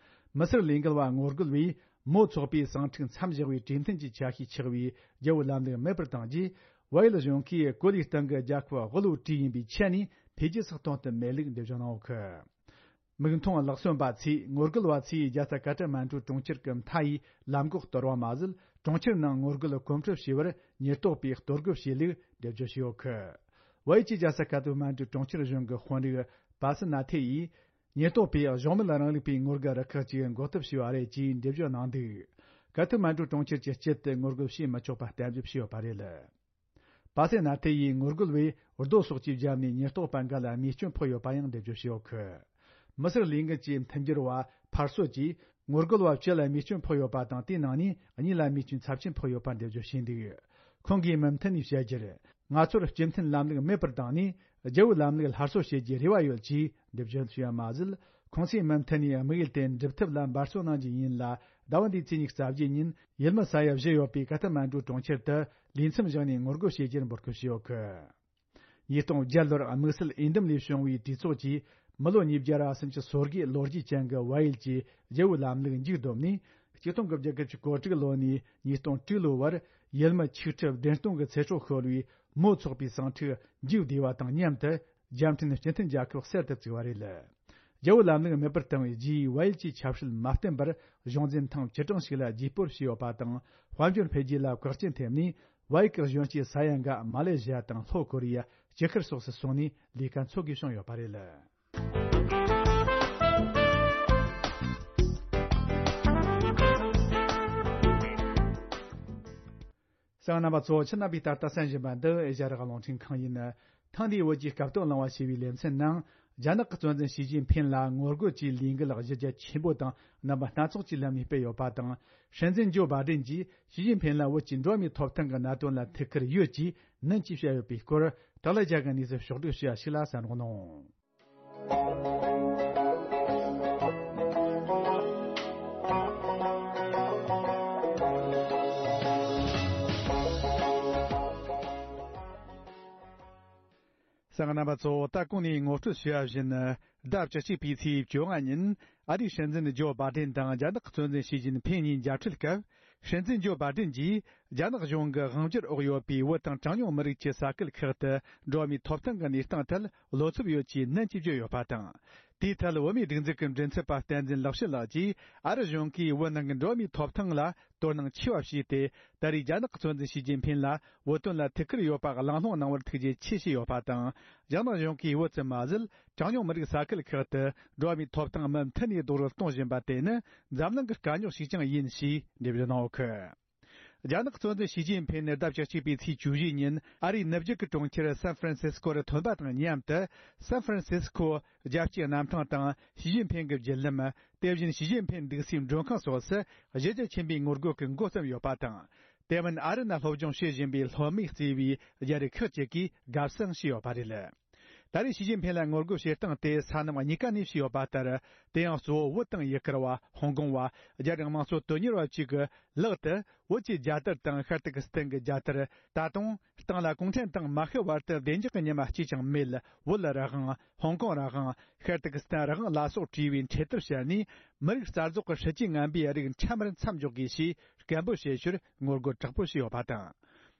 མི་སེར་ལས་འགུལ་བ་ངོ་རྒོལ་བས་མའོ་ཚོགས་པའི་གསང་འཕྲིན་མཚམས་བཞག་པའི་གྲོས་མཐུན་གྱི་ཆ་ཤས་ཆགས་པའི་རྒྱལ་པོའི་ལམ་ལུགས་མེད་པར་བཏང་རྗེས། བལ་ཡུལ་གཞུང་གིས་གོ་ལའི་སྟེང་གི་རྒྱལ་ཁབ་དབུལ་བོའི་གྲས་ཡིན་པའི་ཆ་ནས་འཕེལ་རྒྱས་སུ་གཏོང་ཐུབ་མེད་ལུགས་འགྲེལ་བརྗོད་གནང་ཡོད་གི། མིག་མཐོང་ལག་ཟིན་པ་ཚོས་ངོ་རྒོལ་བ་ཚོས་རྒྱལ་ས་ཀ་ཐ་མན་གྲུ་གྲོང་ཁྱེར་གྱི་མཐའ་ཡི་ལམ་འགོག་གཏོར་བ་མ་ཟད། གྲོང་ཁྱེར་ནང་ངོ་རྒོལ་གོམ་བགྲོད་བྱས་པར་ཉེན་རྟོག་པས་གཏོར་རྒོལ་བྱས་ལུགས་འགྲེལ་བརྗོད་བྱས་ཡོད་གི། བལ་ཡུལ་གྱི་རྒྱལ་ས་ཀ་ཐ་མན་གྲུ་གྲོང་ཁྱེར་གཞུང་གི་དཔོན་རིགས་པ་སི་ན་ཐེ་ཡིས། ཉེན་རྟོག་པས་གཞུང་མིན་རང་ལུགས་པའི་ངོ་རྒོལ་རུ་ཁག་ཅིག་འགོག་ཐབས་བྱས་པ་རེད་ཅེས་འགྲེལ་བརྗོད་གནང་འདུག། ཀ་ཐ་མན་གྲུ་གྲོང་ཁྱེར་གྱི་དཀྱིལ་དུ་ངོ་རྒོལ་བྱེད་མི་ཆོག་པ་གཏན་འབེབས་བྱས་ཡོད་པ་རེད། པ་སེ་ན་ཐེ་ཡིས་ངོ་རྒོལ་བས་རྡོ་སོགས་ཀྱིས་བརྒྱབ་ནས་ཉེན་རྟོག་པ་འགའ་ལ་རྨས་སྐྱོན་ཕོག་ཡོད་པ་ཡང་འགྲེལ་བརྗོད་བྱས་ཡོད་གི། མི་སེར་ལས་འགུལ་གྱི་མཐུན་འགྱུར་བ་ཕར་སོ་ཀྱིས་ངོ་རྒོལ་བ་བཅུ་ལ་རྨས་སྐྱོན་ཕོག་ཡོད་པ་དང་། དེའི་ནང་ནས་གཉིས་ལ་རྨས་སྐྱོན་ཚབས་ཆེན་ཕོག་ཡོད་པ་འགྲེལ་བརྗོད་བྱས་འདུག། ཁོང་གིས་མུ་མཐུད་ནས་བཤད་རྒྱུར། ང་ཚོར་སྤྱི་མཐུན་ལམ་ལུགས་མེད་པར་བཏང་ནས་རྒྱལ་པོའི་ལམ་ལུགས་སླར་གསོ་བྱེད་རྒྱུའི་རེ་བ་ཡོད་ཅེས་འགྲེལ་བརྗོད་བྱས་པ་མ་ཟད། ཁོང་ཚོས་མུ་མཐུད་ནས་དམིགས་ཡུལ་དེ་འགྲུབ་ཐབས་ལ་འབད་བརྩོན་གནང་རྒྱུ་ཡིན་ལ། ཟླ་བ་འདིའི་ཚེས་ཉི་ཤུ་རྩ་བརྒྱད་ཉིན་ཡུལ་མི་ས་ཡ་བཞི་ཡོད་པའི་ཀ་ཐ་མན་གྲུ་གྲོང་ཁྱེར་དུ་ལས་མཚམས་བཞག་ནས་ངོ་རྒོལ་བྱེད་རྒྱུར་འབོད་སྐུལ་བྱས་ཡོད་གི། ཉིས་སྟོང་བརྒྱད་ལོར་དམིགས་བསལ་འོས་འདེམས་ལས་བྱུང་བའི་གྲོས་ཚོགས་ཀྱིས་མི་ལོ་ཉིས་བརྒྱ་ར་སུམ་ཅུ་སོ་དགུའི་ལོ་རྒྱུས་ཅན་གྱི་བལ་ཡུལ་གྱི་རྒྱལ་པོའི་ལམ་ལུགས་མཇུག་བསྡོམས་ནས། ཆིག་སྟོང་དགུ་བརྒྱ་དགུ་བཅུ་གོ་དྲུག་ལོ་ནས་ཉིས་སྟོང་དྲུག་ལོའི་བར་ཡུལ་མི་ཆིག་ཁྲི་བདུན་སྟོང་གི་ཚེ་སྲོག་ཤོར་བའི་མའོ་ཚོགས་པའི་གསང་འཕྲིན་མཇུག་བསྡུས་པ་དང་མཉམ་དུ། རྒྱལ་ཕྲན་སྤྱི་མཐུན་རྒྱལ་ཁབ་གསར་དུ་བཙུགས་པ་རེད། རྒྱལ་པོའི་ལམ་ལུགས་མེད་པར་བཏང་བའི་རྗེས། བལ་ཡུལ་གྱི་ཆབ་སྲིད་མ་བརྟན་པར་གཞུང་འཛིན་ཐེངས་བཅུ་གྲངས་ཤིག་ལ་རྗེས་སྤོར་བྱས་ཡོད་པ་དང་། དཔལ་འབྱོར་འཕེལ་རྒྱས་ལ་བཀག་རྐྱེན་ཐེབས་ནས། བལ་ཡུལ་གྱི་གཞོན་སྐྱེས་ས་ཡ་འགའ་མ་ལེ་ཞི་ཡ་དང་ལྷོ་ཀོ་རི་ཡ། ལྕགས་ཁུར་སོགས་སུ་སོང་ནས་ལས་ཀ་འཚོལ་དགོས་བྱུང་ཡོད་པ་རེད། གསན་མཁན་རྣམ་པ་ཚོ། ཁྱེད་རྣམ་པས་ད་ལྟ་གསན་བཞིན་པ་འདི་ཨེ་ཤ་ཡ་རང་དབང་རླུང་འཕྲིན་ཁང་ཡིན། ཐེངས་འདིའི་བོད་ཀྱི་སྐབས་ཐོག་གླེང་བ་ཞེས་པའི་ལེ་ཚན་ནང་། རྒྱ་ནག་གི་གཙོ་འཛིན་ཞི་ཅིན་ཕིན་ལ་ངོ་རྒོལ་གྱི་ལས་འགུལ་གཞི་རྒྱ་ཆེན་པོ་དང་རྣམ་པ་སྣ་ཚོགས་ཀྱི་ལམ་ནས་སྤེལ་ཡོད་པ་དང་། སྲིད་འཛིན་ཇོ་བྷའི་ཌེན་གྱིས་ཞི་ཅིན་ཕིན་ལ་བོད་ཀྱི་འགྲོ་བ་མིའི་ཐོབ་ཐང་གི་གནད་དོན་ལ་ཐུགས་ཁུར་ཡོད་ཅེས་ནན་གྱིས་བཤད་ཡོད་པའི་སྐོར། དག་ལ་རྒྱ་གི་གནས་ཚུལ་ཕྱོགས་བསྒྲིགས་བྱས་པ་ཞིག་ལ་གསན་རོགས་གནང་། གཙང་རྣམ་པ་ཚོ། ད་གོང་ནས་ངོ་སྤྲོད་བྱས་པ་བཞིན། ཟླ་བཅུ་གཅིག་པའི་ཚེས་བཅོ་ལྔ་ཉིན། ཨ་རིའི་སྲིད་འཛིན་ཇོ་བྷ་ཏན་དང་རྒྱ་ནག་གི་གཙོ་འཛིན་ཞི་ཅིན་ཕིན་གཉིས་མཇལ་འཕྲད་སྐབས། སྲིད་འཛིན་ཇོ་བྷ་ཏན་གྱིས། རྒྱ་ནག་གཞུང་གི་དབང་སྒྱུར་འོག་ཡོད་པའི་བོད་དང་གྲངས་ཉུང་མི་རིགས་ཀྱི་ས་ཁུལ་ཁག་ཏུ། འགྲོ་བ་མིའི་ཐོབ་ཐང་གི་གནས་སྟངས་ཐད། བློ་འཚབ་ཡོད་ཅེས་ནན་གྱིས་བརྗོད་ཡོད་པ་དང་། དེའི་ཐད། བོད་མིའི་སྒྲིག་འཛུགས་ཀྱི་མགྲིན་ཚབ་པ་བསྟན་འཛིན་ལེགས་བཤད་ལགས་ཀྱིས། ཨ་རི་གཞུང་གིས་བོད་ནང་གི་འགྲོ་བ་མིའི་ཐོབ་ཐང་ལ། དོ་སྣང་ཆེ་བ་བྱས་ཏེ། ད་རེས་རྒྱ་ནག་གི་གཙོ་འཛིན་ཞི་ཅིན་ཕིན་ལ་བོད་དོན་ལ་ཐུགས་ཁུར་ཡོད་པ་གླེང་སློང་གནང་བར་ཐུགས་རྗེ་ཆེ་ཞུས་ཡོད་པ་དང་། རྒྱ་ནག་གཞུང་གིས་བོད་ཙམ་མ་ཟད། གྲངས་ཉུང་མི་རིགས་ས་ཁུལ་ཁག་ཏུ་འགྲོ་བ་མིའི་ཐོབ་ཐང་མུ་མཐུད་ནས་རྡོག་རོལ་གཏོང་བཞིན་པ་དེ་ནི་འཛམ་གླིང་གི་དཀའ་རྙོག་ཞིག་ཀྱང་ཡིན་ཞེས་འགྲེལ་བརྗོད་གནང་ཡོད་ཀི། རྒྱ་ནག་གཙོ་འཛིན་ཞི་ཅིན་ཕིན་ནི་ཟླ་བཅུ་གཅིག་པའི་ཚེས་བཅུ་བཞི་ཉིན་ཨ་རིའི་ནུབ་རྒྱུད་ཀྱི་གྲོང་ཁྱེར་སན་ཧྥ་རན་སིས་ཀོ་རུ་ཐོན་པ་དང་མཉམ་དུ། སན་ཧྥ་རན་སིས་ཀོ་རྒྱལ་སྤྱིའི་གནམ་ཐང་དང་ཞི་ཅིན་ཕིན་གྱི་བརྒྱུད་ལམ། དེ་བཞིན་ཞི་ཅིན་ཕིན་འདུག་སའི་མགྲོན་ཁང་སོགས་སུ་གཞི་རྒྱ་ཆེན་པོའི་ངོ་རྒོལ་གྱི་འགོ་བརྩམས་ཡོད་པ་དང་། དེ་མིན་ཨ་རི་ནང་སློབ་སྦྱོང་བྱེད་བཞིན་པའི་སློབ་མས་གཙོས་པའི་རྒྱ་རིགས་ཁག་ཅིག་གིས་དགའ་བསུ་ཞུས་ཡོད་པ་རེད། ད་རེས་ཞི་ཅིན་ཕིན་ལ་ངོ་རྒོལ་བྱེད་སྟངས་དེ་ས་གནས་གཉིས་ཀ་ནས་བྱས་ཡོད་པ་ལྟར། དེ་ཡང་གཙོ་བོ་བོད་དང་ཡུ་གུར་བ། ཧོང་ཀོང་བ། རྒྱ་རིགས་དམངས་གཙོ་དོན་གཉེར་བ་བཅས་ཀྱི་ལག་ཏུ་བོད་ཀྱི་རྒྱལ་དར་དང་ཤར་ཏུར་ཀི་སི་ཐན་གྱི་རྒྱལ་དར། ད་དུང་སྟེང་ལ་གུང་ཁྲན་ཏང་མ་ཤི་བར་དུ་བདེ་འཇགས་ཀྱི་ཉི་མ་གཅིག་ཀྱང་མེད། བོད་རང་དབང་། ཧོང་ཀོང་རང་དབང་། ཤར་ཏུར་ཀི་སི་ཐན་རང་དབང་ལ་སོགས་བྲིས་པའི་འཕྲེད་དར་ཕྱར་ནས། མི་རིགས་རྩ་རྫོགས་ཀྱི་སྲིད་ཇུས་ངན་པའི་རིགས་འཕྲལ་མར་མཚམས་འཇོག་དགོས་ཞེས་སྐད་འབོད་བྱེད་ཕྱིར་ངོ་རྒོལ་དྲག་པོ་བྱས་ཡོད་པ་དང་།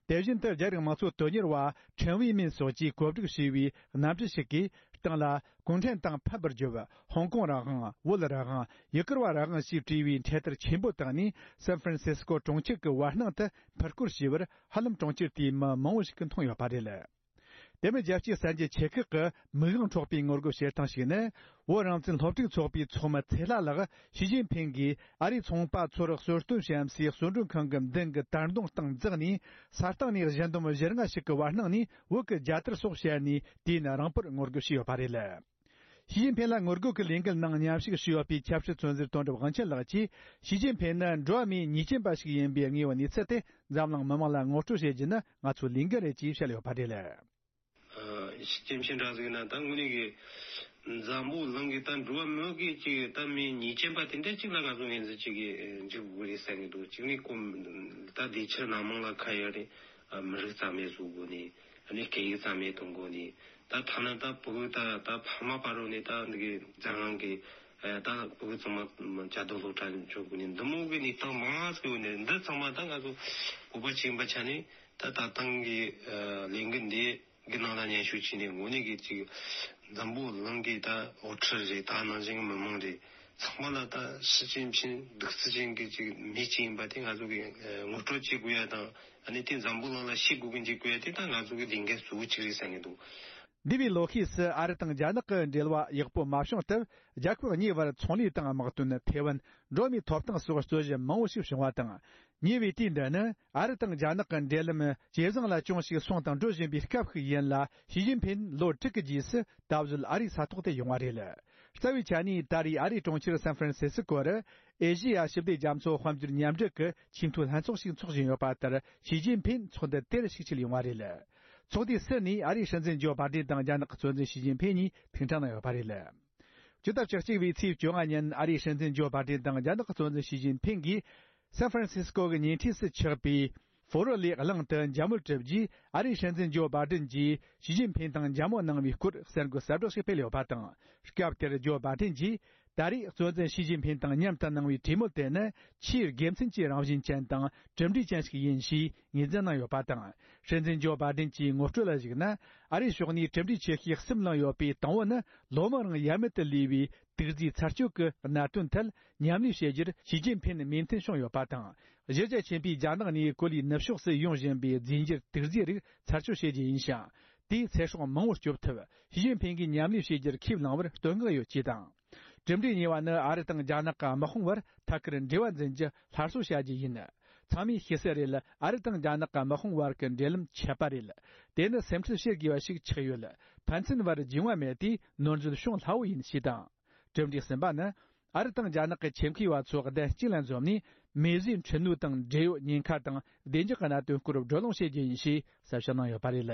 དེ་བཞིན་དུ་རྒྱ་རིགས་དམངས་གཙོ་དོན་གཉེར་བ་ཁྲེན་ཝེ་མིན་སོགས་ཀྱིས་གོ་སྒྲིག་བྱས་པའི་གནམ་གྲུ་ཞིག་གིས་སྟེང་ལ་གུང་ཁྲན་ཏང་ཕམ་པར་བརྗོད། ཧོང་ཀོང་རང་དབང་། བོད་རང་དབང་། ཡུ་གུར་བ་རང་དབང་ཞེས་བྲིས་པའི་འཕྲེད་དར་ཆེན་པོ་བཏང་ནས། སན་ཧྥ་རན་སིས་ཀོ་གྲོང་ཁྱེར་གྱི་བར་སྣང་དུ་འཕུར་སྐོར་བྱས་པར། ཧ་ལམ་གྲོང་ཁྱེར་དེའི་མི་མང་བོ་ཞིག་གིས་མཐོང་ཡོད་པ་རེད། དེ་མིན་རྒྱལ་སྤྱིའི་གསར་འགྱུར་ཆེ་ཁག་གི་མིག་དབང་འཕྲོག་པའི་ངོ་རྒོལ་བྱེད་སྟངས་ཤིག་ནི། བོད་རང་བཙན་སློབ་ཕྲུག་ཚོགས་པའི་ཚོགས་མི་ཚེ་ལྷ་ལགས་ཞི་ཅིན་ཕིན་གྱིས་ཨ་རིའི་ཚོང་པ་ཚོར་གསོལ་སྟོན་བྱེད་སའི་གསོལ་མགྲོན་ཁང་གི་མདུན་གྱི་དར་མདུང་སྟེང་འཛེགས་ནས། ས་སྟེང་ནས་གཞུ་འདོམ་བཞི་ལྔ་ཞིག་གི་བར་སྣང་ནས་བོད་ཀྱི་རྒྱལ་དར་སོགས་བཤལ་ནས། དུས་ཡུན་རིང་པོར་ངོ་རྒོལ་བྱས་ཡོད་པ་རེད། ཞི་ཅིན་ཕིན་ལ་ངོ་རྒོལ་གྱི་ལས་འགུལ་ནང་མཉམ་ཞུགས་ཞུས་ཡོད་པའི་ཆབ་སྲིད་བཙོན་ཟུར་དོན་གྲུབ་དབང་ཆེན་ལགས་ཀྱིས། ཞི་ཅིན་ཕིན་ནི་འགྲོ་བ་མིའི་ཉེས་ཅན་པ་ཞིག་ཡིན་པའི་ངེས་པ་གནས་ཚུལ་དེ་འཛམ་གླིང་མི་མང་ལ་ངོ་སྤྲོད་བྱེད་རྒྱུ་ནི་ང་ཚོའི་ལས་འགན་རེད་ཅེས་བཤད་ཡོད་པ་རེད། ཨ། ཞི་ཅིན་ཕིན་འདྲ་ཟིག་ན་ད་དངོས་གནས་ཀྱི་འཛམ་བུ་གླིང་གི་ད་འགྲོ་བ་མི་གི་ཅིག་ད་མི་ཉེས་ཅན་པ་དེ་འདྲ་ཅིག་ལ་ང་ཚོ་ངོས་འཛིན་ཅིག་གི་འཇུག་དགོས་རེད་བསམ་གྱི་འདུག་གཅིག་ནས་ཁོ་ད་དེ་ཕྱིར་སྣ་མང་ལ་ཁ་ཡོད་རེད། ཨ། མི་རིགས་རྩ་མེད་བཟོ་དགོས་ནས། ཨ་ནི་སྐད་ཡིག་རྩ་མེད་གཏོང་དགོས་ནས། ད་ཐ་ན་ད་ཕྲུ་གུ་ད་ད་ཕ་མ་བར་རོ་ནས་ད་འདི་གི་འཛམ་གླིང་གི་ཨ་ད་ཕྲུ་གུ་ཚང་མ་བཅའ་སྡོད་སློབ་གྲྭ་འཇོག་དགོས་ནས། འདི་མོ་གི་གནས་སྟངས་མང་ང་ཟིག་ཡོད་ནས། འདི་ཚང་མ་ད་ང་ཚོ་བོད་པ་ཅིག་ཡིན་པ་ཆ་ནས། ད་ད་ཐེངས་ཀྱི་ཨ་ལས་འགུལ་འདི་གི་ནང་ལ་མཉམ་ཞུགས་བྱས་ནས། དངོས་གནས་ཀྱི་ཅིག་འཛམ་བུ་གླིང་གི་ད་དབུ་ཁྲིད་རེད། ད་ནང་བཞིན་གྱི་མི་མང་རེད། ཚང་མ་ལ་ད་ཞི་ཅིན་ཕིན་གདུག་རྩུབ་ཅན་གྱི་ཅིག་མི་ཅིག་ཡིན་པ་དེ་ང་ཚོ་གི་ཨ་ངོ་སྤྲོད་བྱེད་དགོས་ཡ་དང་། ཨ་ནི་དེ་འཛམ་བུ་གླིང་ལ་ཤེས་དགོས་གི་འཇུག་དགོས་ཡ་དེ་ད་ང་ཚོ་གི་ལས་འགན་གཙོ་བོ་གཅིག་རེད་བསམ་གྱི་འདུག་འདས་པའི་ལོ་ཤས་སུ་ཨ་རི་དང་རྒྱ་ནག་གི་འབྲེལ་བ་ཡག་པོ་མ་བྱུང་སྟབས། རྒྱལ་ཁབ་གཉིས་བར་ཚོང་ལས་དང་དམག་དོན། ཐའེ་ཝན། འགྲོ་བ་མིའི་ཐོབ་ཐང་སོགས་རྩོད་གཞི་མང་བོ་ཞིག་བྱུང་བ་དང་། ཉེ་བའི་དུས་འདི་ནི་ཨ་རི་དང་རྒྱ་ནག་གི་འབྲེལ་ལམ་ཇེ་བཟང་ལ་ཅུང་ཞིག་སོང་དང་འགྲོ་བཞིན་པའི་སྐབས་ཤིག་ཡིན་ལ། ཞི་ཅིན་ཕིན་ལོ་དྲུག་གི་རྗེས་སུ་ད་གཟོད་ཨ་རིའི་ས་ཐོག་ཏུ་ཡོང་བ་རེད། རྩ་བའི་ཆ་ནས་ད་རེས་ཨ་རིའི་གྲོང་ཁྱེར་སན་ཧྥ་རན་སི་སི་ཀོ་རུ། ཨེ་ཤེ་ཡ་ཞི་བདེ་རྒྱ་མཚོ་དཔལ་འབྱོར་མཉམ་འབྲེལ་གྱི་ཆེས་མཐོའི་ལྷན་ཚོགས་ཤིག་འཚོགས་བཞིན་ཡོད་པ་ལྟར། ཞི་ཅིན་ཕིན་ཚོགས་འདུ་དེར་ཞིག་ཆེད་ཡོང་བ་རེད། ཚོགས་འདུའི་ཟུར་ནས་ཨ་རིའི་སྲིད་འཛིན་ཇོ་བྷ་ཏན་དང་རྒྱ་ནག་གི་གཙོ་འཛིན་ཞི་ཅིན་ཕིན་གཉིས་ཐུག་འཕྲད་གནང་ཡོད་པ་རེད། ཕྱི་ཟླ་བཅུ་གཅིག་པའི་ཚེས་བཅོ་ལྔ་ཉིན་ཨ་རིའི་སྲིད་འཛིན་ཇོ་བྷ་ཏན་དང་རྒྱ་ནག་གི་གཙོ་འཛིན་ཞི་ཅིན་ཕིན་གྱིས། སན་ཧྥ་རན་སིས་ཀོ་གི་ཉེ་འཁྲིས་སུ་ཆགས་པའི་ཧྥོ་རོ་ལི་གླིང་དུ་འཇབ་མོ་བཀྲུས་རྗེས། ཨ་རིའི་སྲིད་འཛིན་ཇོ་བྷ་ཏན་གྱིས་ཞི་ཅིན་ཕིན་དང་འཇབ་མོ་གནང་བའི་སྐོར་གསར་འགོད་གསལ་བསྒྲགས་ཤིག་སྤེལ་ཡོད་པ་དང་། སྐབས་དེར་ཇོ་བྷ་ཏན་གྱིས། ད་རེས་གཙོ་འཛིན་ཞི་ཅིན་ཕིན་དང་མཉམ་དུ་གནང་བའི་གྲོས་མོལ་དེ་ནི་ཆེས་དགེ་མཚན་གྱི་རང་བཞིན་ཅན་དང་གྲུབ་འབྲས་ཅན་ཞིག་ཡིན་ཞེས་ངོས་འཛིན་གནང་ཡོད་པ་དང་། སྲིད་འཛིན་ཇོ་བྷ་ཏན་གྱིས་ངོ་སྤྲོད་ལ་གཞིགས་ན། ཨ་རིའི་ཕྱོགས་ནས་གྲུབ་འབྲས་ཆེ་ཤོས་གསུམ་བླངས་ཡོད་པའི་དང་པོ་ནི། ལོ་མང་རིང་ཡ་མེད་དུ་ལུས་པའི་དུག་རྫས་ཚར་གཅོད་ཀྱི་གནད་དོན་ཐད་མཉམ་ལས་བྱེད་རྒྱུར་ཞི་ཅིན་ཕིན་མོས་མཐུན་བྱུང་ཡོད་པ་དང་། གཞི་རྒྱ་ཆེན་པོས་རྒྱ་ནག་ནས་གོ་ལའི་ནུབ་ཕྱོགས་སུ་ཡོང་བཞིན་པའི་རྫས་འགྱུར་དུག་རྫས་རིགས་ཚར་གཅོད་བྱེད་རྒྱུ་ཡིན་ཞིང་། དེས་ཚེ་སྲོག་མང་བོ་སྐྱོབ་ཐུབ། ཞི་ཅིན་ཕིན་གྱིས་མཉམ་ལས་བྱེད་རྒྱུར་ཁས་བླངས་པར་བསྟོད་བསྔགས་ཡོད་ཅེས་དང་། གྲུབ་འབྲས་གཉིས་པ་ནི། ཨ་རི་དང་རྒྱ་ནག་གི་དམག་དཔུང་བར་ཐད་ཀར་འབྲེལ་བ་འཛིན་རྒྱུ་སླར་གསོ་བྱ་རྒྱུ་ཡིན། ཚང་མས་ཤེས་གསལ་རེད། ཨ་རི་དང་རྒྱ་ནག་གི་དམག་དཔུང་བར་གྱི་འབྲེལ་ལམ་ཆད་པ་རེད། དེ་ནི་སེམས་ཁྲལ་བྱེད་དགོས་པ་ཞིག་ཆགས་ཡོད། ཕན་ཚུན་བར་རྒྱུས་མངའ་མེད་དུས་ནོར་འཛོལ་བྱུང་སླ་བོ་ཡིན་ཞེས་དང་། གྲུབ་འབྲས་གསུམ་པ་ནི། ཨ་རི་དང་རྒྱ་ནག་གི་ཆེད་མཁས་པ་ཚོ་གདན་གཅིག་ལ་འཛོམས་ནས། མེ་བཟོའི་འཕྲུལ་སྣོད་དང་འབྲེལ་ཡོད་ཉེན་ཁ་དང་བདེ་འཇགས་ཀྱི་གནད་དོན་སྐོར་བགྲོ་གླེང་བྱེད་རྒྱུ་ཡིན་ཞེས་གསལ་བཤད་གནང་ཡོད་པ་རེད།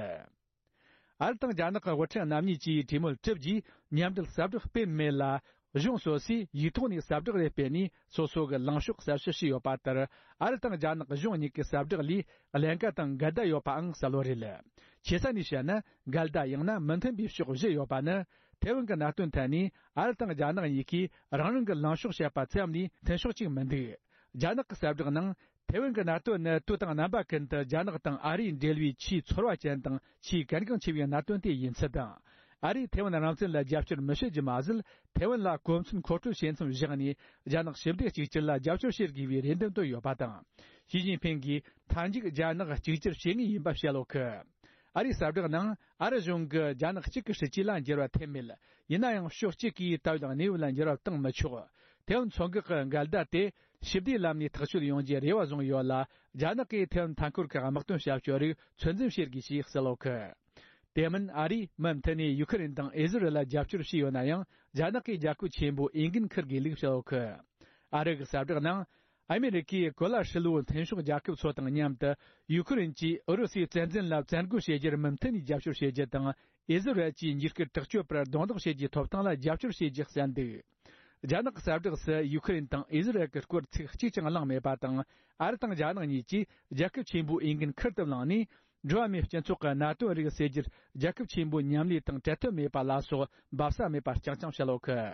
ཨ་རི་དང་རྒྱ་ནག་གི་དབུ་ཁྲིད་རྣམ་གཉིས་ཀྱིས་གྲོས་མོལ་གྲུབ་རྗེས་མཉམ་འབྲེལ་གསལ་བསྒྲགས་སྤེལ་མེད་ལ། གཞུང་སོ་སོས་ཡིག་ཐོག་ནས་གསལ་བསྒྲགས་རེ་སྤེལ་ནས། སོ་སོ་གི་ལངས་ཕྱོགས་གསལ་བཤད་བྱས་ཡོད་པ་ལྟར། ཨ་རི་དང་རྒྱ་ནག་གཞུང་གཉིས་ཀྱི་གསལ་བསྒྲགས་ལས་ཀླན་ཀ་དང་འགལ་ཟླ་ཡོད་པའང་གསལ་བོ་རེད། ཆེ་ས་ནས་བཤད་ན། འགལ་ཟླ་ཡང་ན་མི་མཐུན་པའི་ཕྱོགས་བཞི་ཡོད་པ་ནི། ཐེ་ཝན་གྱི་གནད་དོན་ཐད་ནས་ཨ་རི་དང་རྒྱ་ནག་གཉིས་ཀས་རང་རང་གི་ལངས་ཕྱོགས་བཤད་པ་ཙམ་ལས་མཐུན་ཕྱོགས་གཅིག་མི་འདུག་རྒྱ་ནག་གི་གསལ་བསྒྲགས་ནང་། ཐེ་ཝན་གྱི་གནད་དོན་ནི་དུས་དང་རྣམ་པ་ཀུན་ཏུ་རྒྱ་ནག་དང་ཨ་རིའི་འབྲེལ་བའི་ཆེས་ཚོར་བ་ཅན་དང་ཆེས་གལ་འགངས་ཆེ་བའི་གནད་དོན་དེ་ཡིན་ཚུལ་དང་། ཨ་རིས་ཐེ་ཝན་རང་བཙན་ལ་རྒྱབ་སྐྱོར་མི་བྱེད་རྒྱུ་མ་ཟད། ཐེ་ཝན་ལ་གོ་མཚོན་མཁོ་སྤྲོད་བྱེད་མཚམས་བཞག་ནས། རྒྱ་ནག་ཞི་བདེ་གཅིག་གྱུར་ལ་རྒྱབ་སྐྱོར་བྱེད་དགོས་པའི་རེ་འདུན་བཏོན་ཡོད་པ་དང་། ཞི་ཅིན་ཕིང་གིས་མཐའ་མཇུག་རྒྱ་ནག་གཅིག་གྱུར་བྱེད་ངེས་ཡིན་པ་བཤད་ཡོད་གི། ཨ་རིའི་གསལ་བསྒྲགས་ནང་། ཨ་རི་གཞུང་གིས་རྒྱ་ནག་གཅིག་གི་སྲིད་ཇུས་ལ་འགྱུར་བ་ཐེབས་མེད། ཡིན་ན་ཡང་ཕྱོགས་གཅིག་གིས་ད་ཡོད་གནས་བབ་ལ་འགྱུར་བ་བཏང་མི་ཆོག་ཐེ་ཝན་མཚོ་འགག་གི་འགལ་ཟླ་དེ་ཞི་བདེའི་ལམ་ནས་ཐག་གཅོད་ཡོང་རྒྱུའི་རེ་བ་བཟུང་ཡོད་ལ། རྒྱ་ནག་གིས་ཐེ་ཝན་མཐའ་འཁོར་གྱི་དམག་དོན་བྱ་སྤྱོད་རིགས་ཚོད་འཛིན་བྱེད་དགོས་ཞེས་གསལ་ཡོད་གི། དེ་མིན་ཨ་རིས་མུ་མཐུད་ནས་ཡུ་ཁུ་རེན་དང་ཨི་ཟི་རལ་ལ་རྒྱབ་སྐྱོར་བྱས་ཡོད་ན་ཡང་། རྒྱ་ནག་གིས་རྒྱལ་ཁབ་ཆེན་པོ་འོས་འགན་འཁུར་དགོས་ལུགས་བཤད་ཡོད་གི། ཨ་རི་གི་གསལ་བསྒྲགས་ནང་། ཨ་མེ་རི་ཀས་གོ་ལ་ཧྲིལ་བོའི་མཐུན་ཕྱོགས་རྒྱལ་ཁབ་ཚོ་དང་མཉམ་དུ་ཡུ་ཁུ་རེན་གྱིས་ཨུ་རུ་སུའི་བཙན་འཛུལ་ལ་བཙན་རྒོལ་བྱེད་རྒྱུར་མུ་མཐུད་ནས་རྒྱབ་སྐྱོར་བྱེད་རྒྱུ་དང་། ཨི་ཟི་རལ་གྱིས་འཇིགས་སྐུལ་དྲག་སྤྱོད་པར་རྡུང་རྡེག་བྱེད་རྒྱུའི་ཐོབ་ཐང་ལ་རྒྱབ་སྐྱོར་བྱེད་རྒྱུ་གསལ་འདུག་རྒྱ་ནག་གི་གསལ་བསྒྲགས་སུ་ཡུ་ཁུ་རེན་དང་ཨི་ཟི་རལ་གྱི་སྐོར་ཚིག་གཅིག་ཀྱང་གླེང་མེད་པ་དང་། ཨ་རི་དང་རྒྱ་ནག་གཉིས་ཀྱིས་རྒྱལ་ཁབ་ཆེན་པོའི་འོས་འགན་ཁུར་དུ་བླངས་ནས། འགྲོ་བ་མིའི་སྤྱི་ཚོགས་ཀྱི་གནད་དོན་རིགས་སེལ་རྒྱུར་རྒྱལ་ཁབ་ཆེན་པོའི་མཉམ་ལས་དང་བྲལ་ཐབས་མེད་པ་ལ་སོགས་འབབ་ས་མེད་པར་རྐྱང་རྐྱང་བཤད་ཡོད་གི།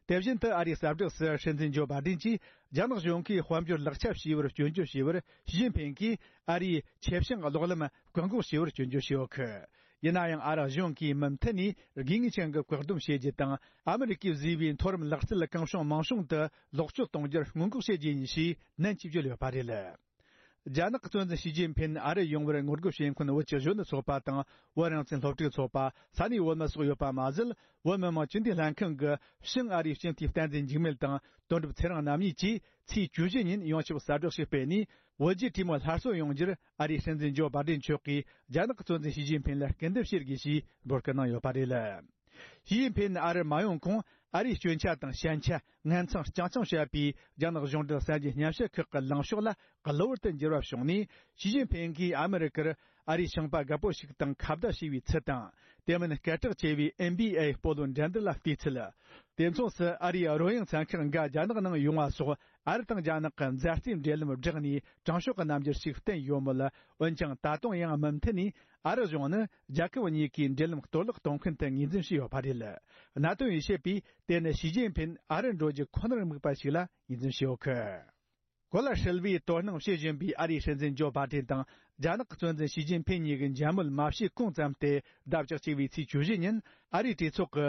དེ་བཞིན་དུ་ཨ་རིའི་གསལ་བསྒྲགས་སུ་སྲིད་འཛིན་ཇོ་བྷ་ཌེན་གྱིས་རྒྱ་ནག་གཞུང་གིས་དཔལ་འབྱོར་ལག་ཆ་བྱས་པར་སྐྱོན་བརྗོད་བྱས་པར་ཞི་ཅིན་ཕིང་གིས་ཨ་རིའི་ཆེད་བྱུང་གློག་ལམ་བཀག་འགོག་བྱས་པར་སྐྱོན་བརྗོད་བྱས་ཡོད་གི། ཡིན་ན་ཡང་ཨ་རི་གཞུང་གིས་མུ་མཐུད་ནས་དགོས་ངེས་ཅན་གྱི་བཀག་སྡོམ་བྱེད་རྒྱུ་དང་། ཨ་མི་རི་ཀས་བཟོས་པའི་མཐོ་རིམ་ལག་རྩལ་གང་བྱུང་མང་བྱུང་དུ་ལོག་སྤྱོད་གཏོང་རྒྱུར་སྔོན་འགོག་བྱེད་རྒྱུ་ཡིན་ཞེས་ནན་གྱིས་བརྗོད་ཡོད་པ་རེད། རྒྱ་ནག་གི་གཙོ་འཛིན་ཞི་ཅིན་ཕིན་ཨ་རི་ཡོང་བར་ངོ་རྒོལ་བྱེད་མཁན་བོད་ཀྱི་གཞོན་ནུ་ཚོགས་པ་དང་བོད་རང་བཙན་སློབ་ཕྲུག་ཚོགས་པ། ས་གནས་བོད་མི་སོགས་ཡོད་པ་མ་ཟད། བོད་མི་མང་སྤྱི་འཐུས་ལྷན་ཁང་གི་ཕྱི་ཨ་རིའི་སྤྱི་འཐུས་བསྟན་འཛིན་འཇིགས་མེད་དང་དོན་གྲུབ་ཚེ་རིང་རྣམ་གཉིས་ཀྱིས་ཚེས་བཅུ་བཞི་ཉིན་ཡོངས་ཁྱབ་གསལ་བསྒྲགས་ཤིག་སྤེལ་ནས། བོད་རྒྱའི་གྲོས་མོལ་སླར་གསོ་ཡོང་རྒྱུར་ཨ་རིའི་སྲིད་འཛིན་ཇོ་བྷ་ཌེན་མཆོག་གིས་རྒྱ་ནག་གི་གཙོ་འཛིན་ཞི་ཅིན་ཕིན་ལ་སྐུར་འདེབས་བྱེད་དགོས་ཞེས་འབོད་སྐུལ་གནང་ཡོད་པ་རེད། ཞི་ཅིན་ཕིན་ཨ་རི་མ་ཡོང་གོང་ཨ་རིའི་སྐྱོན་ཆ་དང་ཞན་ཆ་ངན་མཚང་རྐྱང་རྐྱང་བཤད་པའི་རྒྱ་ནག་གཞུང་འབྲེལ་གསར་འགྱུར་སྙན་ཞུ་ཁག་གི་ལངས་ཕྱོགས་ལ་གློ་བུར་དུ་འགྱུར་བ་བྱུང་ནས། ཞི་ཅིན་ཕིན་གྱིས་ཨ་མི་རི་ཀར་ཨ་རིའི་ཞིང་པ་རྒད་པོ་ཞིག་དང་ཁ་བརྡ་བྱས་པའི་ཚུལ་དང་། དེ་མིན་སྐད་གྲགས་ཆེ་བའི་ཨེན་བྷི་ཨེ་སྤོ་ལོ་འགྲན་བསྡུར་ལ་བལྟས་ཚུལ། དེ་མཚུངས་སུ་ཨ་རིའི་རོལ་དབྱངས་ཚན་ཁག་འགའ་རྒྱ་ནག་ནང་ཡོང་བ་སོགས། ཨ་རི་དང་རྒྱ་ནག་གི་མཛའ་བརྩེའི་འབྲེལ་ལམ་བསྒྲགས་ནས་དྲང་ཕྱོགས་ཀྱི་རྣམ་འགྱུར་ཞིག་བསྟན་ཡོད་མོད། འོན་ཀྱང་ད་དུང་ཡང་མུ་མཐུད་ནས་ཨ་རི་གཞུང་ནི་རྒྱལ་ཁབ་གཉིས་ཀའི་འབྲེལ་ལམ་གཏོར་བརླག་གཏོང་མཁན་དུ་ངོས་འཛིན་བྱས་ཡོད་པ་རེད། གནད་དོན་ཡོད་བཤད་པས་དེ་ནི་ཞི་ཅིན་ཕིན་ཨ་རི་འགྲོ་རྒྱུ་ཁོ་ནར་དམིགས་པ་ཞིག་ལ་ངོས་འཛིན་བྱས་ཡོད་གི། གོ་ལ་ཧྲིལ་བོའི་དོ་སྣང་བྱེད་བཞིན་པའི་ཨ་རིའི་སྲིད་འཛིན་ཇོ་བྷ་ཌེན་དང་རྒྱ་ནག་གི་གཙོ་འཛིན་ཞི་ཅིན་ཕིན་གཉིས་ཀྱི་མཇལ་མོལ་མ་བྱས་གོང་ཙམ་སྟེ། ཟླ་བཅུ་གཅིག་པའི་ཚེས་བཅུ་བཞི་ཉིན་ཨ་རིའི་གྲོས་ཚོགས་ཀྱི་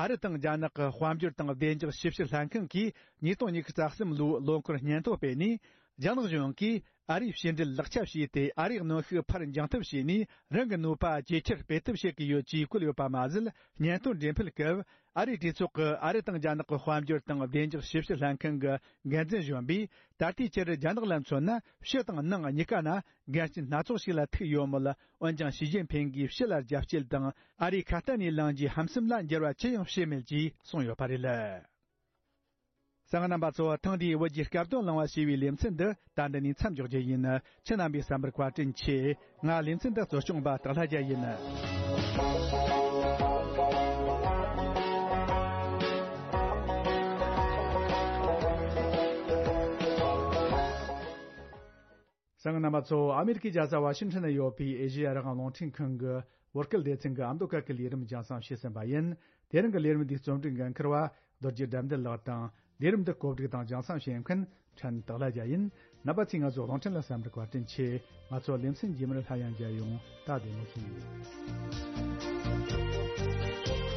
ཨ་རི་དང་རྒྱ་ནག་གི་དཔལ་འབྱོར་དང་བདེ་འཇགས་ཞིབ་བཤེར་ལྷན་ཁང་གིས་ཉིས་སྟོང་ཉི་ཤུ་རྩ་གསུམ་ལོའི་ལོ་འཁོར་སྙན་ཐོ་སྤེལ་ནས། རྒྱ་ནག་གཞུང་གིས་ཨ་རིའི་ཕྱི་འབྲེལ་ལག་ཆ་བྱས་ཏེ། ཨ་རིའི་གནོན་ཤུགས་ཕར་འགྱངས་ཐབས་བྱས་ནས། རང་གི་ནུས་པ་ཇེ་ཆེར་སྤེལ་ཐབས་བྱེད་ཀྱི་ཡོད་ཅེས་བཀོད་ཡོད་པ་མ་ཟད། སྙན་ཐོ་འགྲེམས་སྤེལ་སྐབས། ཨ་རིའི་གྲོས་ཚོགས་ཀྱི་ཨ་རི་དང་རྒྱ་ནག་གི་དཔལ་འབྱོར་དང་བདེ་འཇགས་ཞིབ་བཤེར་ལྷན་ཁང་གི་འགན་འཛིན་གཞོན་པས། ད་ལྟའི་ཆར་རྒྱ་ནག་ལ་མཚོན་ན། ཕྱི་དང་ནང་གཉིས་ཀ་ན་འགལ་རྐྱེན་སྣ་ཚོགས་ཤིག་ལ་ཐུག་ཡོད་མོད། འོན་ཀྱང་ཞི་ཅིན་ཕིན་གྱིས་ཕྱི་ལ་རྒྱབ་སྐྱེད་དང་ཨ་རིའི་ཁ་གཏད་ནས་ལངས་རྒྱུའི་ཧམ་སེམས་ལ་འགྱུར་བ་ཅི་ཡང་བྱས་མེད་ཅེས་གསུངས་ཡོད་པ་རེད། གསན་མཁན་རྣམ་པ་ཚོ། ཐེངས་འདིའི་བོད་ཀྱི་སྐབས་དོན་གླེང་བ་ཞེས་པའི་ལེ་ཚན་འདི་ད་འདི་ནས་མཚམས་འཇོག་རྒྱུ་ཡིན། ཁྱེད་རྣམ་པས་གསན་པར་བཀའ་དྲིན་ཆེ། ང་ལེ་ཚན་འདི་གཙོ་སྐྱོང་པ་སྟག་ལྷ་རྒྱལ་ཡིན། གསན་མཁན་རྣམ་པ་ཚོ། ཨ་མེ་རི་ཀའི་རྒྱལ་ས་ཝ་ཤིང་ཊོན་ན་ཡོད་པའི་ཨེ་ཤེ་ཡ་རང་དབང་རླུང་འཕྲིན་ཁང་གི་བོད་སྐད་སྡེ་ཚན་གྱི་ཨ་མདོ་སྐད་ཀྱི་ལས་རིམ་རྒྱང་སྲིང་བྱས་ཟིན་པ་ཡིན། དེ་རིང་གི་ལས་རིམ་འདིའི་རྩོམ་སྒྲིག་འགན་འཁུར་བ་རྡོ་རྗེ་དགྲ་འདུལ་ལགས་དང་། ལས་རིམ་འདི་གོ་སྒྲིག་དང་རྒྱང་སྲིང་བྱེད་མཁན་ཕྲན་སྟག་ལྷ་རྒྱལ་ཡིན། རྣམ་པ་ཚོས་ང་ཚོའི་རླུང་འཕྲིན་ལ་གསན་པར་བཀའ་དྲིན་ཆེ། ང་ཚོ་ལེ་ཚན་རྗེས་མར་སླར་ཡང་མཇལ་ཡོང་། ད་བདེ་མོ་བྱོས།